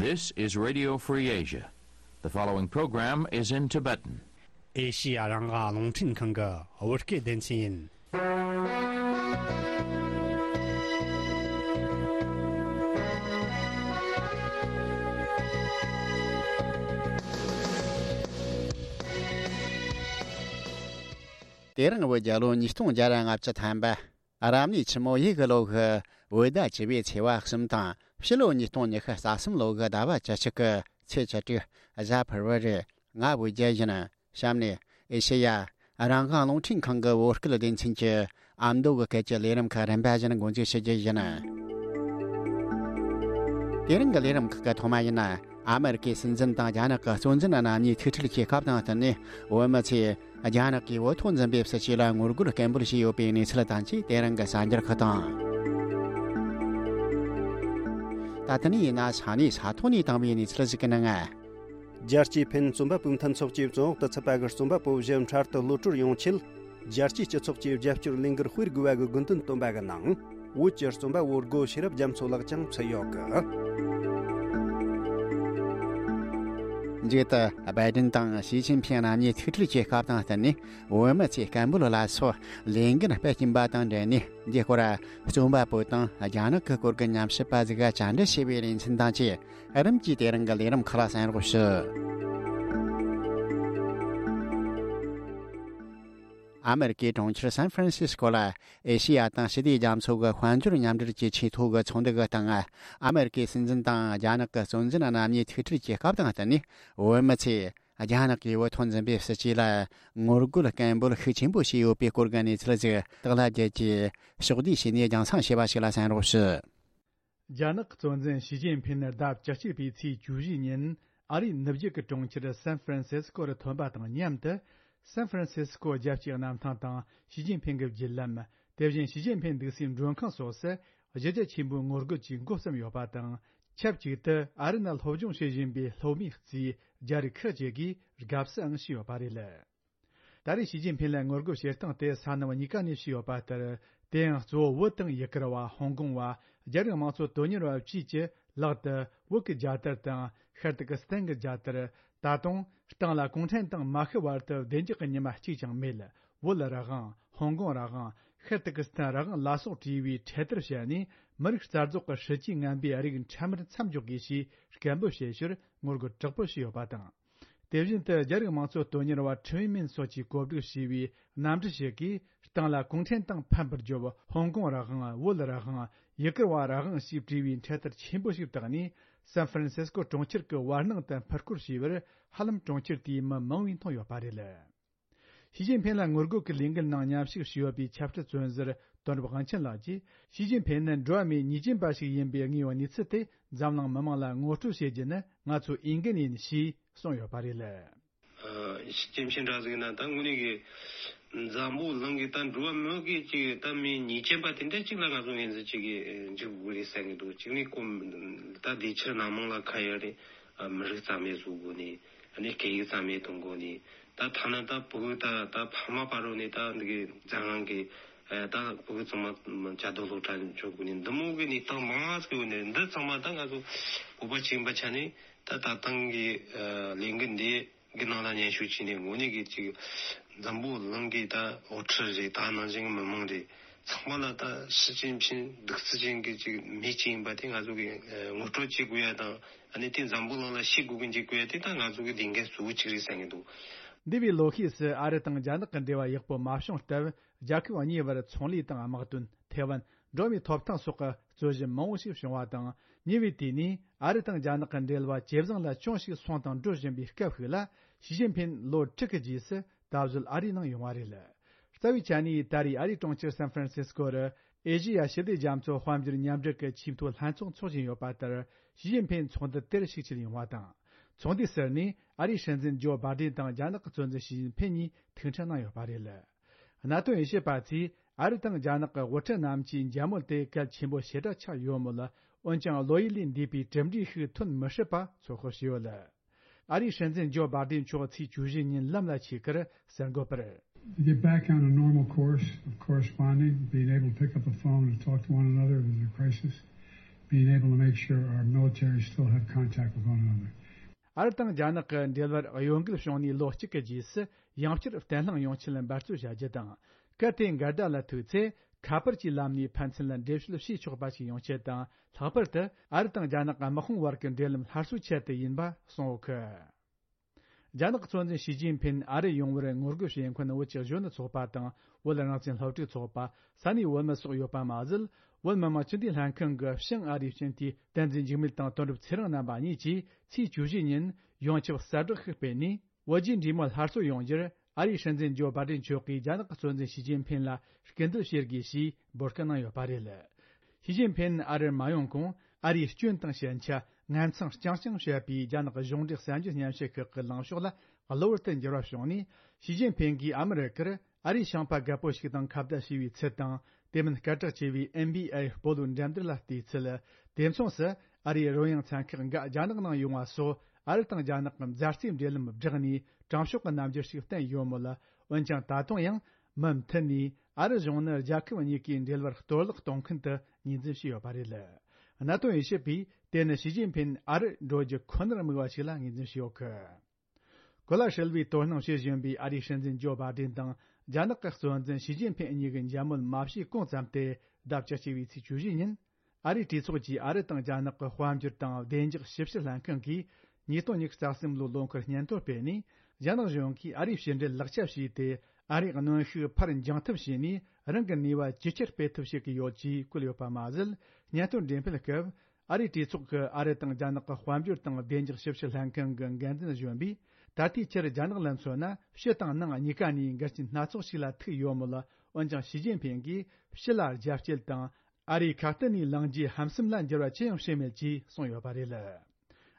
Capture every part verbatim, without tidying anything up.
This is Radio Free Asia. The following program is in Tibetan. ཨེ་ཤི་ཡ་རང་དབང་རླུང་འཕྲིན་ཁང་གི་བོད་སྐད་སྡེ་ཚན་ཡིན། དེ་རིང་བོད་རྒྱལ་ལོ་ཉིས་སྟོང་བརྒྱ་ལྔ་བཅུ་ཐམ་པ། རབ་གནས་ཆུ་མོ་ཡོས་གི་ལོ་གི་བོད་ཟླ་བཅུ་པའི་ཚེས་པ་གསུམ་དང་ཕྱི་ལོ་ཉིས་སྟོང་ཉི་ཤུ་རྩ་གསུམ་ལོ་གི་ཟླ་བ་བཅུ་གཅིག་གི་ཚེས་བཅུ་དྲུག་གཟའ་ཕུར་བུ་རེད། ང་བོད་རྒྱལ་ཡིན། གཤམ་ནས་ཨེ་ཤེ་ཡ་རང་དབང་རླུང་འཕྲིན་ཁང་གི་བོད་སྐད་སྡེ་ཚན་གྱི་ཨ་མདོ་གི་སྐད་ཀྱི་ལས་རིམ་ཁག་རིམ་པ་བཞིན་འགོ་འཛུགས་བྱེད་རྒྱུ་ཡིན། དེ་རིང་གི་ལས་རིམ་ཁག་གི་ཐོག་མ་ཡིན་ན། ཨ་མེ་རི་ཀའི་སྲིད་འཛིན་དང་རྒྱ་ནག་གི་གཙོ་འཛིན་རྣམ་གཉིས་ཐུག་འཕྲད་ཀྱི་སྐབས་དང་བསྟུན་ནས། བོད་མི་ཚོས་རྒྱ་ནག་གིས་བོད་ཐོག་འཛིན་པའི་སྲིད་བྱུས་ལ་ངོ་རྒོལ་སྐད་འབོད་བྱས་ཡོད་པའི་གནས་ཚུལ་དང་བཅས། དེ་རིང་གི་གསར་འགྱུར་ཁག་དང་། ད་ཐེངས་ཡིན་ན་ས་གནས་ས་ཐོག་ནས་བཏང་བའི་གནས་ཚུལ་ཞིག་གི་ནང་། རྒྱལ་སྤྱིའི་ཕན་རྩོམ་པ་པོའི་མཐུན་ཚོགས་ཀྱིས་བཙོན་འོག་ཏུ་ཚུད་པ་གི་རྩོམ་པ་པོ་བཞི་འཕྲལ་དུ་གློད་གྲོལ་ཡོང་ཆེད། རྒྱལ་སྤྱིའི་སྤྱི་ཚོགས་ཀྱིས་རྒྱབ་སྐྱོར་ལས་འགུལ་སྤེལ་དགོས་པ་གི་དགོས་འདུན་བཏོན་པ་གི་ནང་། བོད་ཀྱི་རྩོམ་པ་བོ་སྒོ་ཤེས་རབ་རྒྱ་མཚོ་ལགས་ཀྱང་ཚུད་ཡོད་གི། མཇུག་ཏུ་བའི་ཏིན་དང་ཞི་ཅིན་ཕིང་རྣམ་གཉིས་ཐུག་འཕྲད་ཀྱི་སྐབས་དང་བསྟུན་ནས། བོད་མི་ཚོས་སྐད་འབོད་ལ་སོགས་ལས་འགུལ་སྤེལ་གྱིན་པ་དང་འབྲེལ་ནས། འདིའི་སྐོར་རྩོམ་པ་པོ་དང་རྒྱ་ནག་གི་སྐོར་གྱི་ཉམས་ཞིབ་པ་ཟིག་ག་བཅར་འདྲི་བྱས་པའི་ལེ་ཚན་དང་བཅས། རིམ་གྱིས་དེ་རིང་གི་ལས་རིམ་ཁག་ལ་གསན་རོགས་ཞུ། ཨ་མེ་རི་ཀའི་གྲོང་ཁྱེར་སན་ཧྥ་རན་སིས་ཀོ་ལ། ཨེ་ཤེ་ཡ་དང་ཞི་བདེ་རྒྱ་མཚོ་གི་དཔལ་འབྱོར་མཉམ་འབྲེལ་གྱི་ཆེས་མཐོ་གི་ཚོགས་འདུ་གི་སྟེང་། ཨ་མེ་རི་ཀའི་སྲིད་འཛིན་དང་རྒྱ་ནག་གི་གཙོ་འཛིན་རྣམ་གཉིས་ཐུག་འཕྲད་ཀྱི་སྐབས་དང་བསྟུན་ནས། བོད་མི་ཚོས་རྒྱ་ནག་གིས་བོད་ཐོག་འཛིན་པའི་སྲིད་བྱུས་ལ་ངོ་རྒོལ་སྐད་འབོད་ཤུགས་ཆེན་པོ་བྱས་ཡོད་པའི་སྐོར་གྱི་གནས་ཚུལ་ཞིག་དག་ལ་རྒྱལ་གྱིས་ཕྱོགས་བསྡུས་བྱས་ནས་རྒྱང་སྲིང་བྱས་པ་ཞིག་ལ་གསན་རོགས་ཞུ། རྒྱ་ནག་གཙོ་འཛིན་ཞི་ཅིན་ཕིན་ནི་ཟླ་བཅུ་གཅིག་པའི་ཚེས་བཅུ་བཞི་ཉིན། ཨ་རིའི་ནུབ་རྒྱུད་ཀྱི་གྲོང་ཁྱེར་སན་ཧྥ་རན་སིས་ཀོ་རུ་ཐོན་པ་དང་མཉམ་དུ། སན་ཧྥ་རན་སིས་ཀོ་རྒྱལ་སྤྱིའི་གནམ་ཐང་དང་ཞི་ཅིན་ཕིན་གྱི་བརྒྱུད་ལམ། དེ་བཞིན་ཞི་ཅིན་ཕིན་འདུག་སའི་མགྲོན་ཁང་སོགས་སུ་གཞི་རྒྱ་ཆེན་པོའི་ངོ་རྒོལ་གྱིས་འགོ་བརྩམས་ཡོད་པ་དང་། ཆབས་ཅིག་ཏུ་ཨ་རི་ནང་སློབ་སྦྱོང་བྱེད་བཞིན་པའི་སློབ་མའི་རྩིས་རྒྱ་རིགས་ཁག་ཅིག་གིས་དགའ་བསུའང་བྱས་ཡོད་པ་རེད། ད་རེས་ཞི་ཅིན་ཕིན་ལ་ངོ་རྒོལ་བྱེད་སྟངས་དེ་ས་གནས་གཉིས་ཀ་ནས་བྱས་ཡོད་པ་ལྟར། དེ་ཡང་གཙོ་བོ་བོད་དང་ཡུ་གུར་བ། ཧོང་ཀོང་བ། རྒྱ་རིགས་དམངས་གཙོ་དོན་གཉེར་བ་བཅས་ཀྱི་ལག་ཏུ་བོད་ཀྱི་རྒྱལ་དར་དང་ཤར་ཏུར་ཀི་སི་ཐན་གྱི་རྒྱལ་དར། ད་དུང་སྟེང་ལ་གུང་ཁྲན་ཏང་མ་ཤི་བར་དུ་བདེ་འཇགས་ཀྱི་ཉི་མ་གཅིག་ཀྱང་མེད། བོད་རང་དབང་། ཧོང་ཀོང་རང་དབང་། ཤར་ཏུར་ཀི་སི་ཐན་རང་དབང་ལ་སོགས་བྲིས་པའི་འཕྲེད་དར་བཤད་ནས། མི་རིགས་རྩ་རྫོགས་ཀྱི་སྲིད་ཇུས་ངན་པའི་རིགས་འཕྲལ་མར་མཚམས་འཇོག་དགོས་ཞེས་སྐད་འབོད་བྱེད་ཕྱིར་ངོ་རྒོལ་དྲག་པོ་བྱས་ཡོད་པ་དང་། དེ་བཞིན་དུ་རྒྱ་རིགས་དམངས་གཙོ་དོན་གཉེར་བ་ཁྲིན་ཝེ་མིན་སོགས་ཀྱིས་གོ་སྒྲིག་བྱས་པའི་གནམ་གྲུ་ཞིག་གིས། སྟེང་ལ་གུང་ཁྲན་ཏང་ཕམ་པར་བརྗོད། ཧོང་ཀོང་རང་དབང་། བོད་རང་དབང་། ཡུ་གུར་བ་རང་དབང་ཞེས་བྲིས་པའི་འཕྲེད་དར་ཆེན་པོ་ཞིག་བཏགས་ནས། སན་ཧྥ་རན་སིས་ཀོ་གྲོང་ཁྱེར་གྱི་བར་སྣང་དུ་འཕུར་སྐོར་བྱས་པར། ཧ་ལམ་གྲོང་ཁྱེར་དེའི་མི་མང་བས་མཐོང་ཡོད་པ་རེད། ཞི་ཅིན་ཕིན་ལ་ངོ་རྒོལ་གྱི་ལས་འགུལ་ནང་མཉམ་ཞུགས་བྱས་ཡོད་པའི་ཆབ་སྲིད་བཙོན་ཟུར་དོན་གྲུབ་དབང་ཆེན་ལགས་ཀྱིས། ཞི་ཅིན་ཕིན་ནི་འགྲོ་བ་མིའི་ཉེས་ཅན་པ་ཞིག་ཡིན་པའི་དངོས་ཡོད་གནས་ཚུལ་དེ་འཛམ་གླིང་མི་མང་ལ་ངོ་སྤྲོད་བྱེད་རྒྱུ་ནི་ང་ཚོའི་འོས་འགན་ཡིན་ཞེས་གསུངས་ཡོད་པ་རེད། ཨ། ཞི་ཅིན་ཕིན་འདྲ་ཟིག་ན་ད་དངོས་གནས་ཀྱི་འཛམ་བུ་གླིང་གི་ད་འགྲོ་བ་མི་གི་ཅིག་ད་མིའི་ཉེས་ཅན་པ་དེ་འདྲ་ཅིག་ལ་ང་ཚོ་ངོས་འཛིན་ཅིག་གི་འཇུག་དགོས་རེད་བསམ་གྱི་འདུག་གཅིག་ནས་ཁོ་ད་དེ་ཕྱིར་ནང་མང་ལ་ཁ་ཡ་རེད། ཨ། མི་རིགས་རྩ་མེད་བཟོ་དགོས་ནས། ཨ་ནི་སྐད་ཡིག་རྩ་མེད་གཏོང་དགོས་ནས། ད་ཐ་ན་ད་ཕྲུ་གུ་ད་ད་ཕ་མ་བར་རུ་ནས་ད་འདི་གི་འཛམ་གླིང་གི་ཨ་ད་ཕྲུ་གུ་ཚང་མ་བྱ་དོ་སློབ་གྲྭ་འཇོག་དགོས་ནས། འདི་མོ་གི་གནས་སྟངས་མང་ང་ཟིག་ཡོད་ནས། འདི་ཚང་མ་ད་ང་ཚོ་བོད་པ་ཅིག་ཡིན་པ་ཆ་ནས་ད་ད་ཐེངས་གི་ཨ་ལས་འགུལ་འདི་གི་ནང་ལ་མཉམ་ཞུགས་བྱས་ནས། དངོས་གནས་ཀྱི་ཅིག་འཛམ་བུ་གླིང་གི་ད་དབུ་ཁྲིད་རེད། ད་ནང་བཞིན་གྱི་མི་མང་རེད། ཚང་མ་ལ་ད་ཞི་ཅིན་ཕིན་གདུག་རྩུབ་ཅན་གྱི་ཅིག་མི་ཅིག་ཡིན་པ་དེ་ང་ཚོ་གི་ངོ་སྤྲོད་བྱེད་དགོས་ཡ་དང་། ཨ་ནི་དེ་འཛམ་བུ་གླིང་ལ་ཤེས་དགོས་གི་འཇུག་དགོས་ཡ་དེ་ད་ང་ཚོ་གི་ལས་འགན་གཙོ་བོ་གཅིག་རེད་བསམ་གྱི་འདུག་འདས་པའི་ལོ་ཤས་སུ་ཨ་རི་དང་རྒྱ་ནག་གི་འབྲེལ་བ་ཡག་པོ་མ་བྱུང་སྟབས། རྒྱལ་ཁབ་གཉིས་བར་ཚོང་ལས་དང་དམག་དོན། ཐའེ་ཝན། འགྲོ་བ་མིའི་ཐོབ་ཐང་སོགས་ཀྱི་རྩོད་གཞི་མང་བོ་ཞིག་བྱུང་བ་དང་། ཉེ་བའི་དུས་ནས་ཨ་རི་དང་རྒྱ་ནག་གི་འབྲེལ་བ་ཇེ་བཟང་ལ་ཅུང་ཞིག་སོང་དང་འགྲོ་བཞིན་པའི་སྐབས་ཤིག་ལ། ཞི་ཅིན་ཕིན་ལོ་དྲུག་གི་རྗེས་སུ་ད་གཟོད་ཨ་རིའི་ནང་ཡོང་བ་རེད། རྩ་བའི་ཆ་ནས་ད་རེས་ཨ་རིའི་གྲོང་ཁྱེར་སན་ཧྥ་རན་སིས་ཀོ་རུ་ཨེ་ཤེ་ཡ་ཞི་བདེ་རྒྱ་མཚོ་དཔལ་འབྱོར་མཉམ་འབྲེལ་གྱི་ཆེས་མཐོའི་ལྷན་ཚོགས་འཚོགས་བཞིན་ཡོད་པ་ལྟར། ཞི་ཅིན་ཕིན་ཚོགས་འདུ་དེར་ཞུགས་ཕྱིར་ཡོང་བ་དང་། ཚོགས་འདུའི་ཟུར་ནས་ཨ་རིའི་སྲིད་འཛིན་ཇོ་བྷ་ཏན་དང་རྒྱ་ནག་གི་གཙོ་འཛིན་ཞི་ཅིན་ཕིན་གཉིས་ཐུག་འཕྲད་གནང་ཡོད་པ་རེད། གནད་དོན་དབྱེ་ཞིབ་པ་ཚོས་ཨ་རི་དང་རྒྱ་ནག་གི་དབུ་ཁྲིད་རྣམས་ཀྱིས་མཇལ་མོལ་དེ་གལ་ཆེན་པོ་ཞེ་དྲག་ཆགས་ཡོད་མོད། འོན་ཀྱང་བློ་ཡུལ་ལས་འདས་པའི་གྲུབ་འབྲས་ཤིག་ཐོན་མི་སྲིད་པ་ཚོད་དཔག་བྱས་ཡོད། ཨ་རིའི་སྲིད་འཛིན་ཇོ་བྷ་ཏན་མཆོག་ཚེས་བཅུ་བཞི་ཉིན་ལམ་ལ་ཆས་ཁར་གསར་འགོད་པར། To get back on a normal course of corresponding, being able to pick up the phone and talk to one another if there's a crisis, Being able to make sure our military still have contact with one another. ཨ་རི་དང་རྒྱ་ནག་གི་འབྲེལ་བར་གཡོ་འགུལ་བྱུང་ནས་ལོ་གཅིག་གི་རྗེས་སུ་ཡང་བསྐྱར་བརྟན་ལྷིང་ཡོང་ཆེད་འབད་རྩོལ་བྱ་རྒྱུ་དང་། གལ་ཏེ་འགལ་ཟླ་ལ་ཐུག་ཚེ་ཁ་པར་གྱི་ལམ་ནས་ཕན་ཚུན་ལ་འགྲེལ་བཤད་བྱེད་ཆོག་པ་ཞིག་ཡོང་ཆེད་དང་། ལྷག་པར་དུ་ཨ་རི་དང་རྒྱ་ནག་དམག་དཔུང་བར་གྱི་འབྲེལ་ལམ་སླར་གསོའི་ཆེད་དུ་ཡིན་པ་གསུངས་ཡོད་གི། རྒྱ་ནག་གི་གཙོ་འཛིན་ཞི་ཅིན་ཕིན་ཨ་རི་ཡོང་བར་ངོ་རྒོལ་བྱེད་མཁན་བོད་ཀྱི་གཞོན་ནུ་ཚོགས་པ་དང་བོད་རང་བཙན་སློབ་ཕྲུག་ཚོགས་པ། ས་གནས་བོད་མི་སོགས་ཡོད་པ་མ་ཟད། བོད་མི་མང་སྤྱི་འཐུས་ལྷན་ཁང་གི་ཕྱི་ཨ་རིའི་སྤྱི་འཐུས་བསྟན་འཛིན་འཇིགས་མེད་དང་དོན་གྲུབ་ཚེ་རིང་རྣམ་པ་གཉིས་ཀྱིས་ཚེས་བཅུ་བཞི་ཉིན་ཡོངས་ཁྱབ་གསལ་བསྒྲགས་ཤིག་སྤེལ་ནས། བོད་རྒྱའི་འབྲེལ་མོལ་སླར་གསོ་ཡོང་རྒྱུར་ཨ་རིའི་སྲིད་འཛིན་ཇོ་བྷའི་ཌེན་མཆོག་གིས་རྒྱ་ནག་གི་གཙོ་འཛིན་ཞི་ཅིན་ཕིན་ལ་སྐུལ་འདེད་བྱེད་དགོས་ཞེས་འབོད་སྐུལ་གནང་ཡོད་པ་རེད། ཞི་ཅིན་ཕིན་ཨ་རིར་མ་ཡོང་གོང་། ཨ་རིའི་སྐྱོན་དང་ཞན་ཆ་ངན་མཚང་རྐྱང་རྐྱང་བཤད་པའི་རྒྱ་ནག་གཞུང་འབྲེལ་གསར་འགྱུར་སྙན་ཞུ་ཁག་གི་ལངས་ཕྱོགས་ལ་གློ་བུར་དུ་འགྱུར་བ་བྱུང་ནས། ཞི་ཅིན་ཕིན་གྱིས་ཨ་མི་རི་ཀར་ཨ་རིའི་ཤིང་པ་རྒད་པོ་ཞིག་དང་ཁ་བརྡ་བྱས་པའི་ཚུལ་དང་། དེ་མིན་སྐད་གྲགས་ཆེ་བའི་ཨེན་བྷི་ཨེ་སྤོ་ལོའི་འགྲན་བསྡུར་ལ་བལྟས་ཚུལ། དེ་མཚུངས་སུ་ཨ་རིའི་རོལ་དབྱངས་ཚན་ཁག་འགའ་རྒྱ་ནག་ནང་ཡོང་བ་སོགས། ཨ་རི་དང་རྒྱ་ནག་གི་མཛའ་བརྩེའི་འབྲེལ་ལམ་བསྒྲགས་ནས་དྲང་ཕྱོགས་ཀྱི་རྣམ་འགྱུར་ཞིག་བསྟན་ཡོད་མོད། འོན་ཀྱང་ད་དུང་ཡང་མུ་མཐུད་ནས་ཨ་རི་གཞུང་ནི་རྒྱལ་ཁབ་གཉིས་ཀའི་འབྲེལ་བར་གཏོར་བརླག་གཏོང་མཁན་དུ་ངོས་འཛིན་བྱས་ཡོད་པ་རེད། གནད་དོན་དབྱེ་ཞིབ་པས་དེ་ནི་ཞི་ཅིན་ཕིན་ཨ་རི་འགྲོ་རྒྱུ་ཁོ་ནར་དམིགས་པ་ཞིག་ལ་ངོས་འཛིན་བྱས་ཡོད་གི། གོ་ལ་ཧྲིལ་བོའི་དོ་སྣང་བྱེད་བཞིན་པའི་ཨ་རིའི་སྲིད་འཛིན་ཇོ་བྷའི་ཌེན་དང་རྒྱ་ནག་གི་གཙོ་འཛིན་ཞི་ཅིན་ཕིན་གཉིས་ཀྱི་མཇལ་མོལ་མ་བྱས་གོང་ཙམ་དུ། ཟླ་བཅུ་གཅིག་པའི་ཚེས་བཅུ་བཞི་ཉིན། ཨ་རིའི་གྲོས་ཚོགས་ཀྱི་ཨ་རི་དང་རྒྱ་ནག་གི་དཔལ་འབྱོར་དང་བདེ་འཇགས་ཞིབ་བཤེར་ལྷན་ཁང་གིས་ཉིས་སྟོང་ཉི་ཤུ་རྩ་གསུམ་ལོའི་ལོ་འཁོར་སྙན་ཐོ་སྤེལ་ནས། རྒྱ་ནག་གཞུང་གིས་ཨ་རིའི་ཕྱི་འབྲེལ་ལག་ཆ་བྱས་ཏེ། ཨ་རིའི་གནོན་ཤུགས་ཕར་འགྱངས་ཐབས་བྱས་ནས། རང་གི་ནུས་པ་ཇེ་ཆེར་སྤེལ་ཐབས་བྱེད་ཀྱི་ཡོད་ཅེས་བཀོད་ཡོད་པ་མ་ཟད། སྙན་ཐོ་འགྲེམས་སྤེལ་སྐབས། ཨ་རིའི་གྲོས་ཚོགས་ཀྱི་ཨ་རི་དང་རྒྱ་ནག་གི་དཔལ་འབྱོར་དང་བདེ་འཇགས་ཞིབ་བཤེར་ལྷན་ཁང་གི་འགན་འཛིན་གཞོན་པས། ད་ལྟའི་ཆར་རྒྱ་ནག་ལ་མཚོན་ན། ཕྱི་དང་ནང་གཉིས་ཀ་ནས་འགལ་རྐྱེན་སྣ་ཚོགས་ཤིག་ལ་ཐུག་ཡོད་མོད། འོན་ཀྱང་ཞི་ཅིན་ཕིན་གྱིས་ཕྱི་ལ་རྒྱ་སྐྱེད་དང་། ཨ་རིའི་ཁ་གཏད་ནས་ལངས་རྒྱུའི་ཧམ་སེམས་ལ་འགྱུར་བ་ཅི་ཡང་བྱས་མེད་ཅེས་གསུངས་ཡོད་པ་རེད།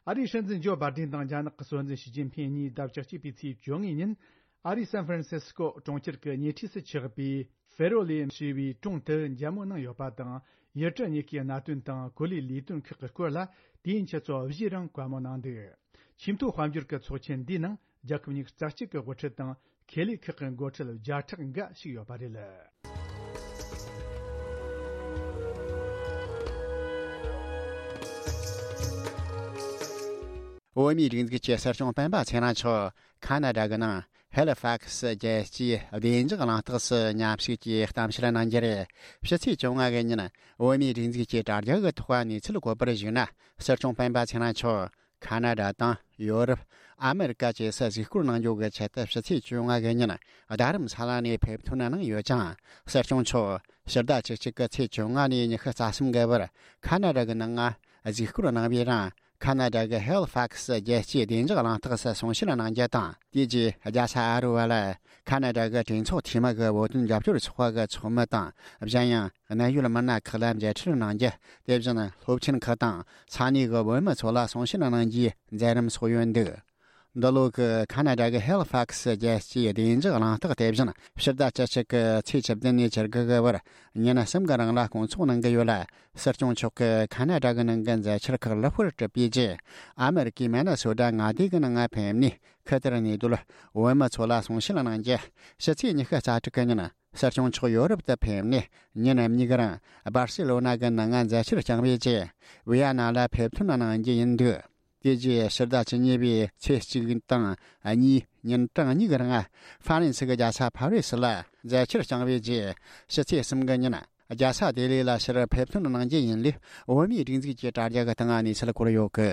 ཨ་རིའི་སྲིད་འཛིན་ཇོ་བྷའི་ཌེན་དང་རྒྱ་ནག་གི་གཙོ་འཛིན་ཞི་ཅིན་ཕིན་གཉིས་ཟླ་བཅུ་གཅིག་པའི་ཚེས་བཅོ་ལྔ་ཉིན། ཨ་རིའི་སན་ཧྥ་རན་སི་སྐོ་གྲོང་ཁྱེར་གྱི་ཉེ་འཁྲིས་སུ་ཆགས་པའི་ཧྥེ་རོ་ལེ་ཞེས་པའི་གྲོང་དུ་མཇལ་མོལ་གནང་ཡོད་པ་དང་། ཡུལ་གྲུ་གཉིས་ཀའི་གནད་དོན་དང་། གོ་ལའི་ལས་དོན་ཁག་གི་སྐོར་ལ་དུས་ཡུན་ཆུ་ཚོད་བཞིའི་རིང་བཀའ་མོལ་གནང་འདུག། ཆེས་མཐོའི་དཔལ་འབྱོར་གྱི་ཚོགས་ཆེན་འདིའི་ནང་རྒྱལ་ཁབ་ཉི་ཤུ་རྩ་གཅིག་གི་དབུ་ཁྲིད་དང་། ཁེ་ལས་ཁག་གི་འགོ་ཁྲིད་བརྒྱ་ཕྲག་འགའ་ཞུགས་ཡོད་པ་རེད། བོད་མིའི་སྒྲིག་འཛུགས་ཀྱི་སྲིད་སྐྱོང་སྤེན་པ་ཚེ་རིང་མཆོག་ཁ་ན་ཌ་གི་ནང་ཧེ་ལི་ཕག་སི་རྒྱལ་སྤྱིའི་བདེ་འཇགས་གླེང་སྟེགས་སུ་མཉམ་ཞུགས་ཀྱིས་གཏམ་བཤད་གནང་རྒྱུ་རེད། ཕྱི་ཚེས་བཅོ་ལྔ་གི་ཉིན་བོད་མིའི་སྒྲིག་འཛུགས་ཀྱི་དྲ་རྒྱ་གི་ཐོག་གནས་ཚུལ་བཀོད་པར་གཞིགས་ན། སྲིད་སྐྱོང་སྤེན་པ་ཚེ་རིང་མཆོག་ཁ་ན་ཌ་དང་ཡོ་རོབ། ཨ་མེ་རི་ཀ་བཅས་སུ་གཟིགས་སྐོར་གནང་རྒྱུ་གི་ཆེད་དུ་ཕྱི་ཚེས་བཅོ་ལྔ་གི་ཉིན་རྡ་རམ་ས་ལ་ནས་ཕེབས་ཐོན་གནང་ཡོད་ཅིང་། སྲིད་སྐྱོང་མཆོག་ཕྱི་ཟླ་བཅུ་གཅིག་གི་ཚེས་བཅོ་ལྔ་ནས་ཉི་ཤུ་རྩ་གསུམ་གི་བར་ཁ་ན་ཌ་གི་ནང་ང་གཟིགས་སྐོར་གནང་བའི་རིང་། ཁ་ན་ཌ་གི་ཧེ་ལི་ཕག་སི་རྒྱལ་སྤྱིའི་བདེ་འཇགས་གླེང་སྟེགས་སུ་གསུང་བཤད་གནང་རྒྱུ་དང་། དེ་རྗེས་རྒྱལ་ས་ཨ་རུ་བ་ལ་ཁ་ན་ཌ་གི་གྲོས་ཚོགས་འཐུས་མི་གི་བོད་དོན་རྒྱབ་སྐྱོར་ཚོགས་པ་གི་ཚོགས་མི་དང་། གཞན་ཡང་གནད་ཡོད་མི་སྣ་ཁག་ལ་མཇལ་འཕྲད་གནང་རྒྱུ། དེ་བཞིན་སློབ་ཆེན་ཁག་དང་ས་གནས་གི་བོད་མི་ཚོ་ལ་གསུང་བཤད་གནང་རྒྱུའི་མཛད་རིམ་སོགས་ཡོད་འདུག། འདི་ལོ་གི་ཁ་ན་ཌ་གི་ཧེ་ལི་ཕག་སི་རྒྱལ་སྤྱིའི་བདེ་འཇགས་གླེང་སྟེགས་དེ་བཞིན་ཕྱི་ཟླ་བཅུ་གཅིག་གི་ཚེས་བཅུ་བདུན་ནས་བཅུ་དགུ་གི་བར་ཉིན་གསུམ་གི་རིང་ལ་སྐོང་ཚོགས་གནང་གི་ཡོད་ལ། སྲིད་སྐྱོང་མཆོག་གིས་ཁ་ན་ཌ་གི་ནང་གི་མཛད་འཆར་ཁག་ལེགས་པོར་གྲུབ་པའི་རྗེས། ཨ་མེ་རི་ཀའི་མི་ནི་སོ་ཊ་མངའ་སྡེ་གི་ནང་ང་ཕེབས་ནས་ཁུ་ཐེར་གནས་སྡོད་བོད་མི་ཚོ་ལ་གསུང་བཤད་གནང་རྒྱུ། ཕྱི་ཚེས་ཉི་ཤུ་རྩ་དྲུག་གི་ཉིན་སྲིད་སྐྱོང་མཆོག་ཡོ་རོབ་ཏུ་ཕེབས་ནས་ཉིན་གཉིས་ཀྱི་རིང་སྦར་སེ་ལོ་ན་གི་ནང་ང་མཛད་འཆར་བསྐྱངས་པའི་རྗེས། ཝི་ཡ་ན་ལ་ཕེབས་ཐོན་གནང་རྒྱུ་ཡིན་འདུག། དེ་རྗེས་ཕྱི་ཟླ་བཅུ་གཉིས་པའི་ཚེས་གཅིག་དང་གཉིས་ཉིན་གྲངས་གཉིས་ཀྱི་རིང་ཧྥ་རན་སི་གི་རྒྱལ་ས་ཕ་རི་སི་ལ་མཛད་འཆར་བསྐྱངས་པའི་རྗེས། ཕྱི་ཚེས་གསུམ་གི་ཉིན་རྒྱལ་ས་ལྡི་ལི་ལ་ཕྱིར་ཕེབས་ཐོན་གནང་རྒྱུ་ཡིན་ལུགས་བོད་མིའི་སྒྲིག་འཛུགས་ཀྱི་དྲ་རྒྱ་གི་སྟེང་གནས་ཚུལ་བཀོད་ཡོད་གི།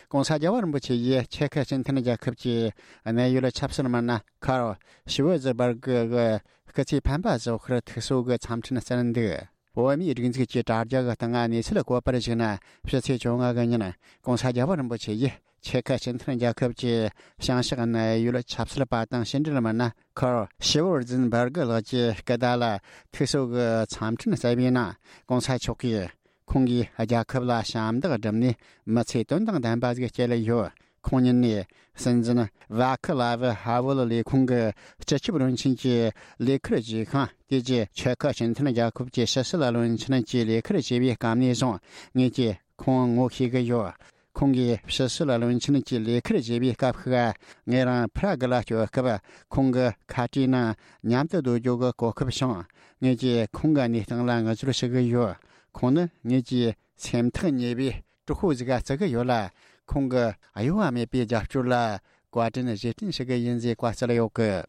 ༸གོང་ས་རྒྱལ་བ་རིན་པོ་ཆེ་ཡིས་ཆེ་ཁུ་སྤྱི་མཐུན་རྒྱལ་ཁབ་ཀྱི་གནད་ཡོད་ཆབ་སྲིད་མི་སྣ་ཁར་ཤི་ཝེ་ཛི་བར་གི་གི་སྐུ་ཚེ་འཕེན་པ་བཞུགས་སྒར་ཐུགས་གསོ་གི་འཚམས་འཕྲིན་བསྩལ་འདུག། བོད་མིའི་སྒྲིག་འཛུགས་ཀྱི་དྲ་རྒྱ་གི་སྟེང་གནས་ཚུལ་བཀོད་པར་གཞིགས་ན། ཕྱི་ཚེས་བཅོ་ལྔ་གི་ཉིན་༸གོང་ས་རྒྱལ་བ་རིན་པོ་ཆེ་ཡིས་ཆེ་ཁུ་སྤྱི་མཐུན་རྒྱལ་ཁབ་ཀྱི་བྱང་ཕྱོགས་གནད་ཡོད་ཆབ་སྲིད་པ་དང་ཕྱི་འབྲེལ་མི་སྣ་ཁར་ཤི་ཝར་ཛིན་བར་གི་ལགས་ཀྱི་སྐུ་ཟླ་ལ་ཐུགས་གསོ་གི་འཚམས་འཕྲིན་བསྩལ་བའི་ནང་༸གོང་ས་མཆོག་གིས། ཁོང་གིས་རྒྱལ་ཁབ་ལ་ཞབས་འདེགས་བསྒྲུབས་ནས་མི་ཚེ་དོན་དང་ལྡན་པ་ཞིག་སྐྱེལ་ཡོད། ཁོང་ཉིད་ནས་སྲིད་འཛིན་ཝ་ཁི་ལ་ཝི་ཧ་ཝུལ་ལས་ཁུངས་ཀྱི་སྤྱི་ཁྱབ་བློན་ཆེན་གྱི་ལས་ཁུར་བཞེས་ཤིང་། དེ་རྗེས་ཆེ་ཁུ་སྤྱི་མཐུན་རྒྱལ་ཁབ་ཀྱི་ཕྱི་སྲིད་བློན་ཆེན་གྱི་ལས་ཁུར་བཞེས་པའི་སྐབས་ནས་བཟུང་ངེད་ཀྱིས་ཁོང་ངོ་ཤེས་ཀྱི་ཡོད། ཁོང་གིས་ཕྱི་སྲིད་བློན་ཆེན་གྱི་ལས་ཁུར་བཞེས་པའི་སྐབས་ཤིག་ངེད་རང་པྲ་གི་ལ་སྐྱོད་སྐབས་ཁོང་གི་ཁ་བྲིས་ནང་མཉམ་དུ་སྡོད་རྒྱུ་གི་གོ་སྐབས་བྱུང་། ངེད་ཀྱིས་ཁོང་གི་གནས་སྟངས་ལ་ངུ་ཚོར་ཞུ་གི་ཡོད། ཁོང་ནི་ངེད་ཀྱི་སེམས་ཐག་ཉེ་བའི་གྲོགས་པོ་ཟིག་ག་བརྩི་གི་ཡོད་ལ། ཁོང་གི་གཡོ་བ་མེད་པའི་རྒྱབ་སྐྱོར་ལ་བཀའ་དྲིན་རྗེས་དྲན་ཞུ་གི་ཡིན་ཟེར་བཀའ་སྩལ་ཡོད་གི།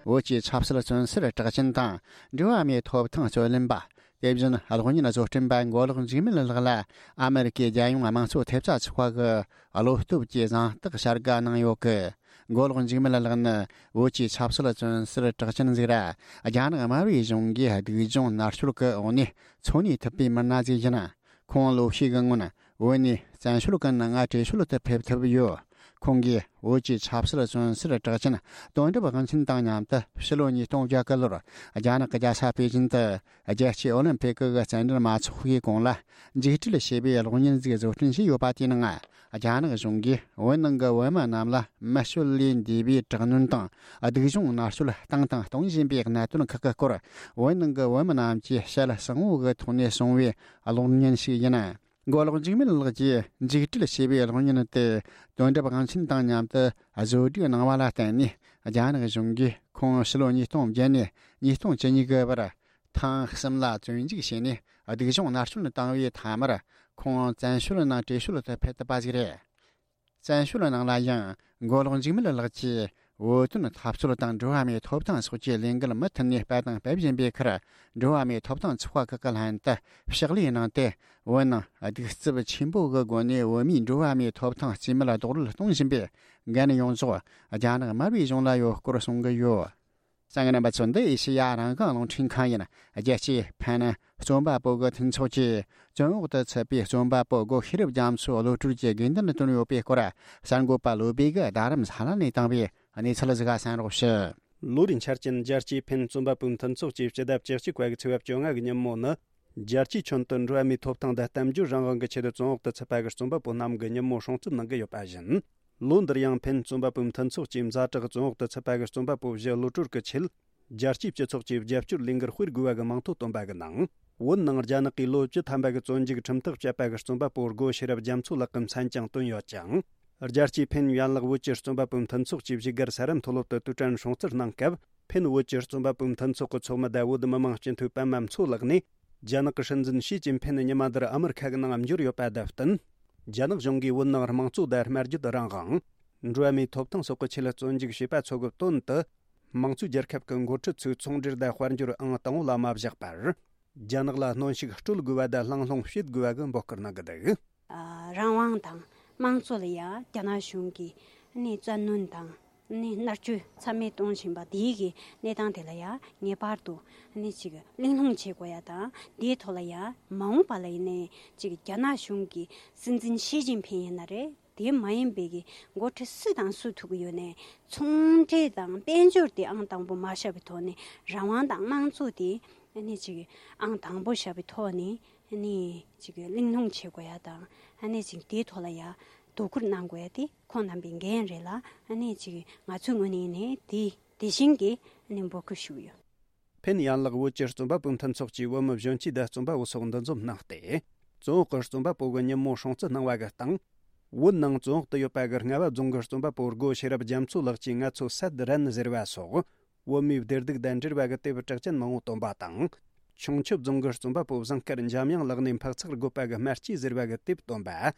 བོད་ཀྱི་ཆབ་སྲིད་བཙོན་ཟུར་གྲགས་ཅན་དང་འགྲོ་བ་མིའི་ཐོབ་ཐང་རྩོད་ལེན་པ། དེ་བཞིན་གློག་བརྙན་བཟོ་སྐྲུན་པ་མགོ་ལོག་འཇིགས་མེད་ལགས་ལ་ཨ་མེ་རི་ཀའི་རྒྱལ་ཡོངས་དམངས་གཙོ་ཐེབས་རྩ་ཚོགས་པ་གི་བློ་སྟོབས་ཀྱི་གཟེངས་རྟགས་བྱ་དགའ་གནང་ཡོད་གི། མགོ་ལོག་འཇིགས་མེད་ལགས་ནི་བོད་ཀྱི་ཆབ་སྲིད་བཙོན་ཟུར་གྲགས་ཅན་ཟིག་ར། རྒྱ་ནག་དམར་པོའི་གཞུང་གིས་སྡུག་སྦྱོང་མནར་གཅོད་ཀྱི་འོག་ནས་འཚོ་གནས་ཐུབ་པའི་མི་སྣ་ཟིག་ཡིན། ཁོང་ལོ་ཤས་ཀྱི་སྔོན་བོད་ནས་བཙན་བྱོལ་ཀུན་ལྔ་བྲོས་བྱོལ་དུ་ཕེབས་ཐུབ་ཡོད། ཁོང་གིས་བོད་ཀྱི་ཆབ་སྲིད་བཙོན་ཟུར་གྲགས་ཅན་དོན་གྲུབ་དབང་ཆེན་དང་མཉམ་དུ་ཕྱི་ལོ་ཉིས་སྟོང་བརྒྱད་གི་ལོར་རྒྱ་ནག་གི་རྒྱལ་ས་པེ་ཅིན་དུ་རྒྱལ་སྤྱིའི་ཨོ་ལིམ་ཕིག་གི་རྩེད་འགྲན་མ་ཚོགས་པའི་གོང་ལ་འཇིགས་བྲལ་ཞེས་པའི་གློག་བརྙན་ཟིག་བཟོ་སྐྲུན་བྱས་ཡོད་པ་དེའི་ནང་། རྒྱ་ནག་གཞུང་གིས་བོད་ནང་གི་བོད་མི་རྣམས་ལ་མི་སྤྱོད་ལས་འདས་པའི་དྲག་གནོན་དང་སྡུག་སྦྱོང་མནར་གཅོད་བཏང་དང་གཏོང་བཞིན་པའི་གནད་དོན་ཁག་གི་སྐོར། བོད་ནང་གི་བོད་མི་རྣམས་ཀྱིས་ཞལ་གསང་བོ་གི་ཐོག་ནས་གསུངས་པའི་གློག་བརྙན་ཞིག་ཡིན། མགོ་ལོག་འཇིགས་མེད་ལགས་ཀྱིས་འཇིགས་བྲལ་ཞེས་པའི་གློག་བརྙན་དེ་དོན་གྲུབ་དབང་ཆེན་དང་མཉམ་དུ་བཟོ་སྒྲིག་གནང་བ་ལ་བརྟེན་ནས། རྒྱ་ནག་གཞུང་གིས་ཁོང་ཕྱི་ལོ་ཉིས་སྟོང་བརྒྱད་ནས་ཉིས་སྟོང་བཅུ་གཉིས་གི་བར་ཐེངས་གསུམ་ལ་བཙོན་འཇུག་བྱས་ནས་སྡུག་སྦྱོང་མནར་གཅོད་བཏང་བའི་མཐའ་མར། ཁོང་བཙན་བྱོལ་ནང་བྲོས་བྱོལ་དུ་ཕེབས་ཐུབ་པ་ཞིག་རེད། བཙན་བྱོལ་ནང་ལ་ཡང་མགོ་ལོག་འཇིགས་མེད་ལགས་ཀྱིས་བོད་དོན་འཐབ་རྩོད་དང་འགྲོ་བ་མིའི་ཐོབ་ཐང་སོགས་ཀྱི་ལས་འགུལ་མུ་མཐུད་ནས་སྤེལ་དང་སྤེལ་བཞིན་པའི་ཁར། འགྲོ་བ་མིའི་ཐོབ་ཐང་ཚོགས་པ་ཁག་གི་ལྷན་དུ་ཕྱག་ལས་གནང་སྟེ། བོད་ནང་གདུག་རྩུབ་ཆེན་པོ་གི་སྒོ་ནས་བོད་མིའི་འགྲོ་བ་མིའི་ཐོབ་ཐང་རྩིས་མེད་རྡོག་རོལ་གཏོང་བཞིན་པའི་འགན་ཡོངས་རྫོགས་རྒྱ་ནག་དམར་པོའི་གཞུང་ལ་ཡོད་སྐོར་གསུང་གི་ཡོད། གསན་མཁན་རྣམ་པ་ཚོ། འདི་ཨེ་ཤེ་ཡ་རང་དབང་རླུང་འཕྲིན་ཁང་ཡིན། རྒྱལ་སྤྱིའི་ཕན་རྩོམ་པ་པོ་གི་མཐུན་ཚོགས་ཀྱིས་བཙོན་འོག་ཏུ་ཚུད་པའི་རྩོམ་པ་པོ་སྒོ་ཤེས་རབ་རྒྱ་མཚོ་གློད་གྲོལ་གྱི་དགོས་འདུན་བཏོན་ཡོད་པའི་སྐོར། གསར་འགོད་པ་བློ་བྷེ་གིས་རྡ་རམ་ས་ལ་ནས་བཏང་བའི་གནས་ཚུལ་ཟིག་གསན་རོགས་ཞུ། ལོ་རེའི་འཆར་ཅན་རྒྱལ་སྤྱིའི་ཕན་རྩོམ་པ་པོའི་མཐུན་ཚོགས་ཀྱིས་སྤྱི་ཟླ་བཅུ་གཅིག་པ་གི་ཚེས་པ་བཅོ་ལྔ་གི་ཉིན་མོ་ནི། རྒྱལ་སྤྱིའི་ཁྱོན་དུ་འགྲོ་བ་མིའི་ཐོབ་ཐང་དང་གཏམ་བརྗོད་རང་དབང་གི་ཆེད་དུ་བཙོན་འོག་ཏུ་ཚུད་པ་གི་རྩོམ་པ་པོ་རྣམས་ཀྱི་ཉིན་མོ་སྲུང་བརྩི་གནང་གི་ཡོད་པ་བཞིན། ལོ་འདིར་ཡང་ཕན་རྩོམ་པ་པོའི་མཐུན་ཚོགས་ཀྱིས་ཛ་དྲག་བཙོན་འོག་ཏུ་ཚུད་པ་གི་རྩོམ་པ་པོ་བཞི་གློད་གྲོལ་གྱི་ཆེད། རྒྱལ་སྤྱིའི་སྤྱི་ཚོགས་ཀྱིས་རྒྱབ་སྐྱོར་ལས་འགུལ་སྤེལ་དགོས་པ་གི་མིང་ཐོ་བཏོན་པ་གི་ནང་། བོད་ནང་རྒྱ་ནག་གིས་ལོ་བཅུ་ཐམ་པ་གི་བཙོན་འཇུག་ཁྲིམས་ཐག་བཅད་པ་གི་རྩོམ་པ་པོ་སྒོ་ཤེས་རབ་རྒྱ་མཚོ་ལགས་ཀྱི་མཚན་ཀྱང་བཏོན་ཡོད་ཅིང་། རྒྱལ་སྤྱིའི་ཕན་ཡན་ལག་བོད་ཀྱི་རྩོམ་པ་པོའི་མཐུན་ཚོགས་ཀྱིས་བཞུགས་སྒར་ས་རཱ་མཐོ་སློབ་ཏུ་དུས་དྲན་སྲུང་བརྩི་གནང་སྐབས། ཕན་བོད་ཀྱི་རྩོམ་པ་པོའི་མཐུན་ཚོགས་ཀྱི་ཚོགས་མི་དང་བོད་མི་མང་སྤྱི་འཐུས་པད་མ་མཚོ་ལགས་ནས། རྒྱ་ནག་གི་སྲིད་འཛིན་ཞི་ཅིན་ཕིན་ཉི་མ་འདིར་ཨ་མི་རི་ཁ་གི་ནང་འབྱོར་ཡོད་པ་དང་བསྟུན། རྒྱ་ནག་གཞུང་གིས་བོད་ནང་དམངས་གཙོ་དང་སྨྲ་བརྗོད་རང་དབང་། འགྲོ་བ་མིའི་ཐོབ་ཐང་སོགས་ཀྱི་ཆེད་བཙོན་འཇུག་བྱས་པ་ཚོ་གི་དོན་དུ། དམངས་གཙོའི་རྒྱལ་ཁབ་ཀྱི་འགོ་ཁྲིད་ཚོས་ཚོང་འབྲེལ་དང་དཔལ་འབྱོར་ཨང་དང་པོ་ལ་མ་བཞག་པར། རྒྱ་ནག་ལ་གནོན་ཤུགས་སྤྲོད་དགོས་པ་དང་ལྷང་ལྷུང་བྱེད་དགོས་པ་གི་འབོད་སྐུལ་གནང་གི་འདུག། ཨ། རང་དབང་དང་དམངས་གཙོ་ལ་ཡང་རྒྱ་ནག་གཞུང་གིས་ནི་བཙན་གནོན་དང་ནི་མནར་གཅོད་ཚད་མེད་གཏོང་བཞིན་པ་དེའི་གི་གནས་སྟངས་དེ་ལ་ཡང་ངེས་པར་དུ་ནི་ཅིག་གླེང་སློང་བྱེད་དགོས་ཡ་དང་། དེའི་ཐོག་ལ་ཡང་མ་འོངས་པ་ལ་ཡིན་ནའི་ཅིག་རྒྱ་ནག་གཞུང་གི་སྲིད་འཛིན་ཞི་ཅིན་ཕིན་ཡིན་ན་རེད། དེ་མ་ཡིན་པའི་གི་འགོ་ཁྲིད་སུ་དང་སུ་ཐུག་གི་ཡོད་ནའི་ཚོང་འབྲེལ་དང་དཔལ་འབྱོར་དེ་ཨང་དང་པོ་མ་བཞག་པའི་ཐོག་ནས། རང་དབང་དང་དམངས་གཙོ་དེ་ནི་ཅིག་ཨང་དང་པོ་བཞག་པའི་ཐོག་ནས། ཨ་ནི་ཅིག་གླེང་སློང་བྱེད་དགོས་ཡ་དང་། ཨ་ནི་ཅིག་དེའི་ཐོག་ལ་ཡ་དོ་ཁུར་གནང་དགོས་ཡ་དེ་ཁོང་རྣམ་པའི་འགན་རེད་ལ། ཨ་ནི་ཅིག་ང་ཚོའི་ངོས་ནས་ནི་དེ་དེ་བཞིན་གྱི་ཨ་ནི་འབོད་སྐུལ་ཞུས་ཡོད། ཕན་ཡན་ལག་བོད་ཀྱི་རྩོམ་པ་པོའི་མཐུན་ཚོགས་ཀྱིས་བོད་མི་གཞོན་སྐྱེས་དང་རྩོམ་པ་པོ་སོགས་འདུ་འཛོམས་གནང་སྟེ། བཙོན་འོག་གི་རྩོམ་པ་པོ་གི་ཉིན་མོ་སྲུང་བརྩི་གནང་བ་གི་སྟེང་། བོད་ནང་བཙོན་འོག་ཏུ་ཡོད་པ་གི་རྔ་བ་རྫོང་གི་རྩོམ་པ་པོ་སྒོ་ཤེས་རབ་རྒྱ་མཚོ་ལགས་ཀྱིས་ང་ཚོ་སད་རན་ཟེར་བ་སོགས། བོད་མིའི་བདེ་སྡུག་དང་འབྲེལ་བ་གི་དེབ་གྲགས་ཅན་མང་བོ་བཏོན་པ་དང་། ཁྱུང་མཆུ་རྫོང་གི་རྩོམ་པ་པོ་བཟང་དཀར་འཇམ་དབྱངས་ལགས་ནས་འཕག་འཚག་རྒོད་པ་གི་དམར་སྐྱེས་ཟེར་བ་གི་དེབ་བཏོན་པ།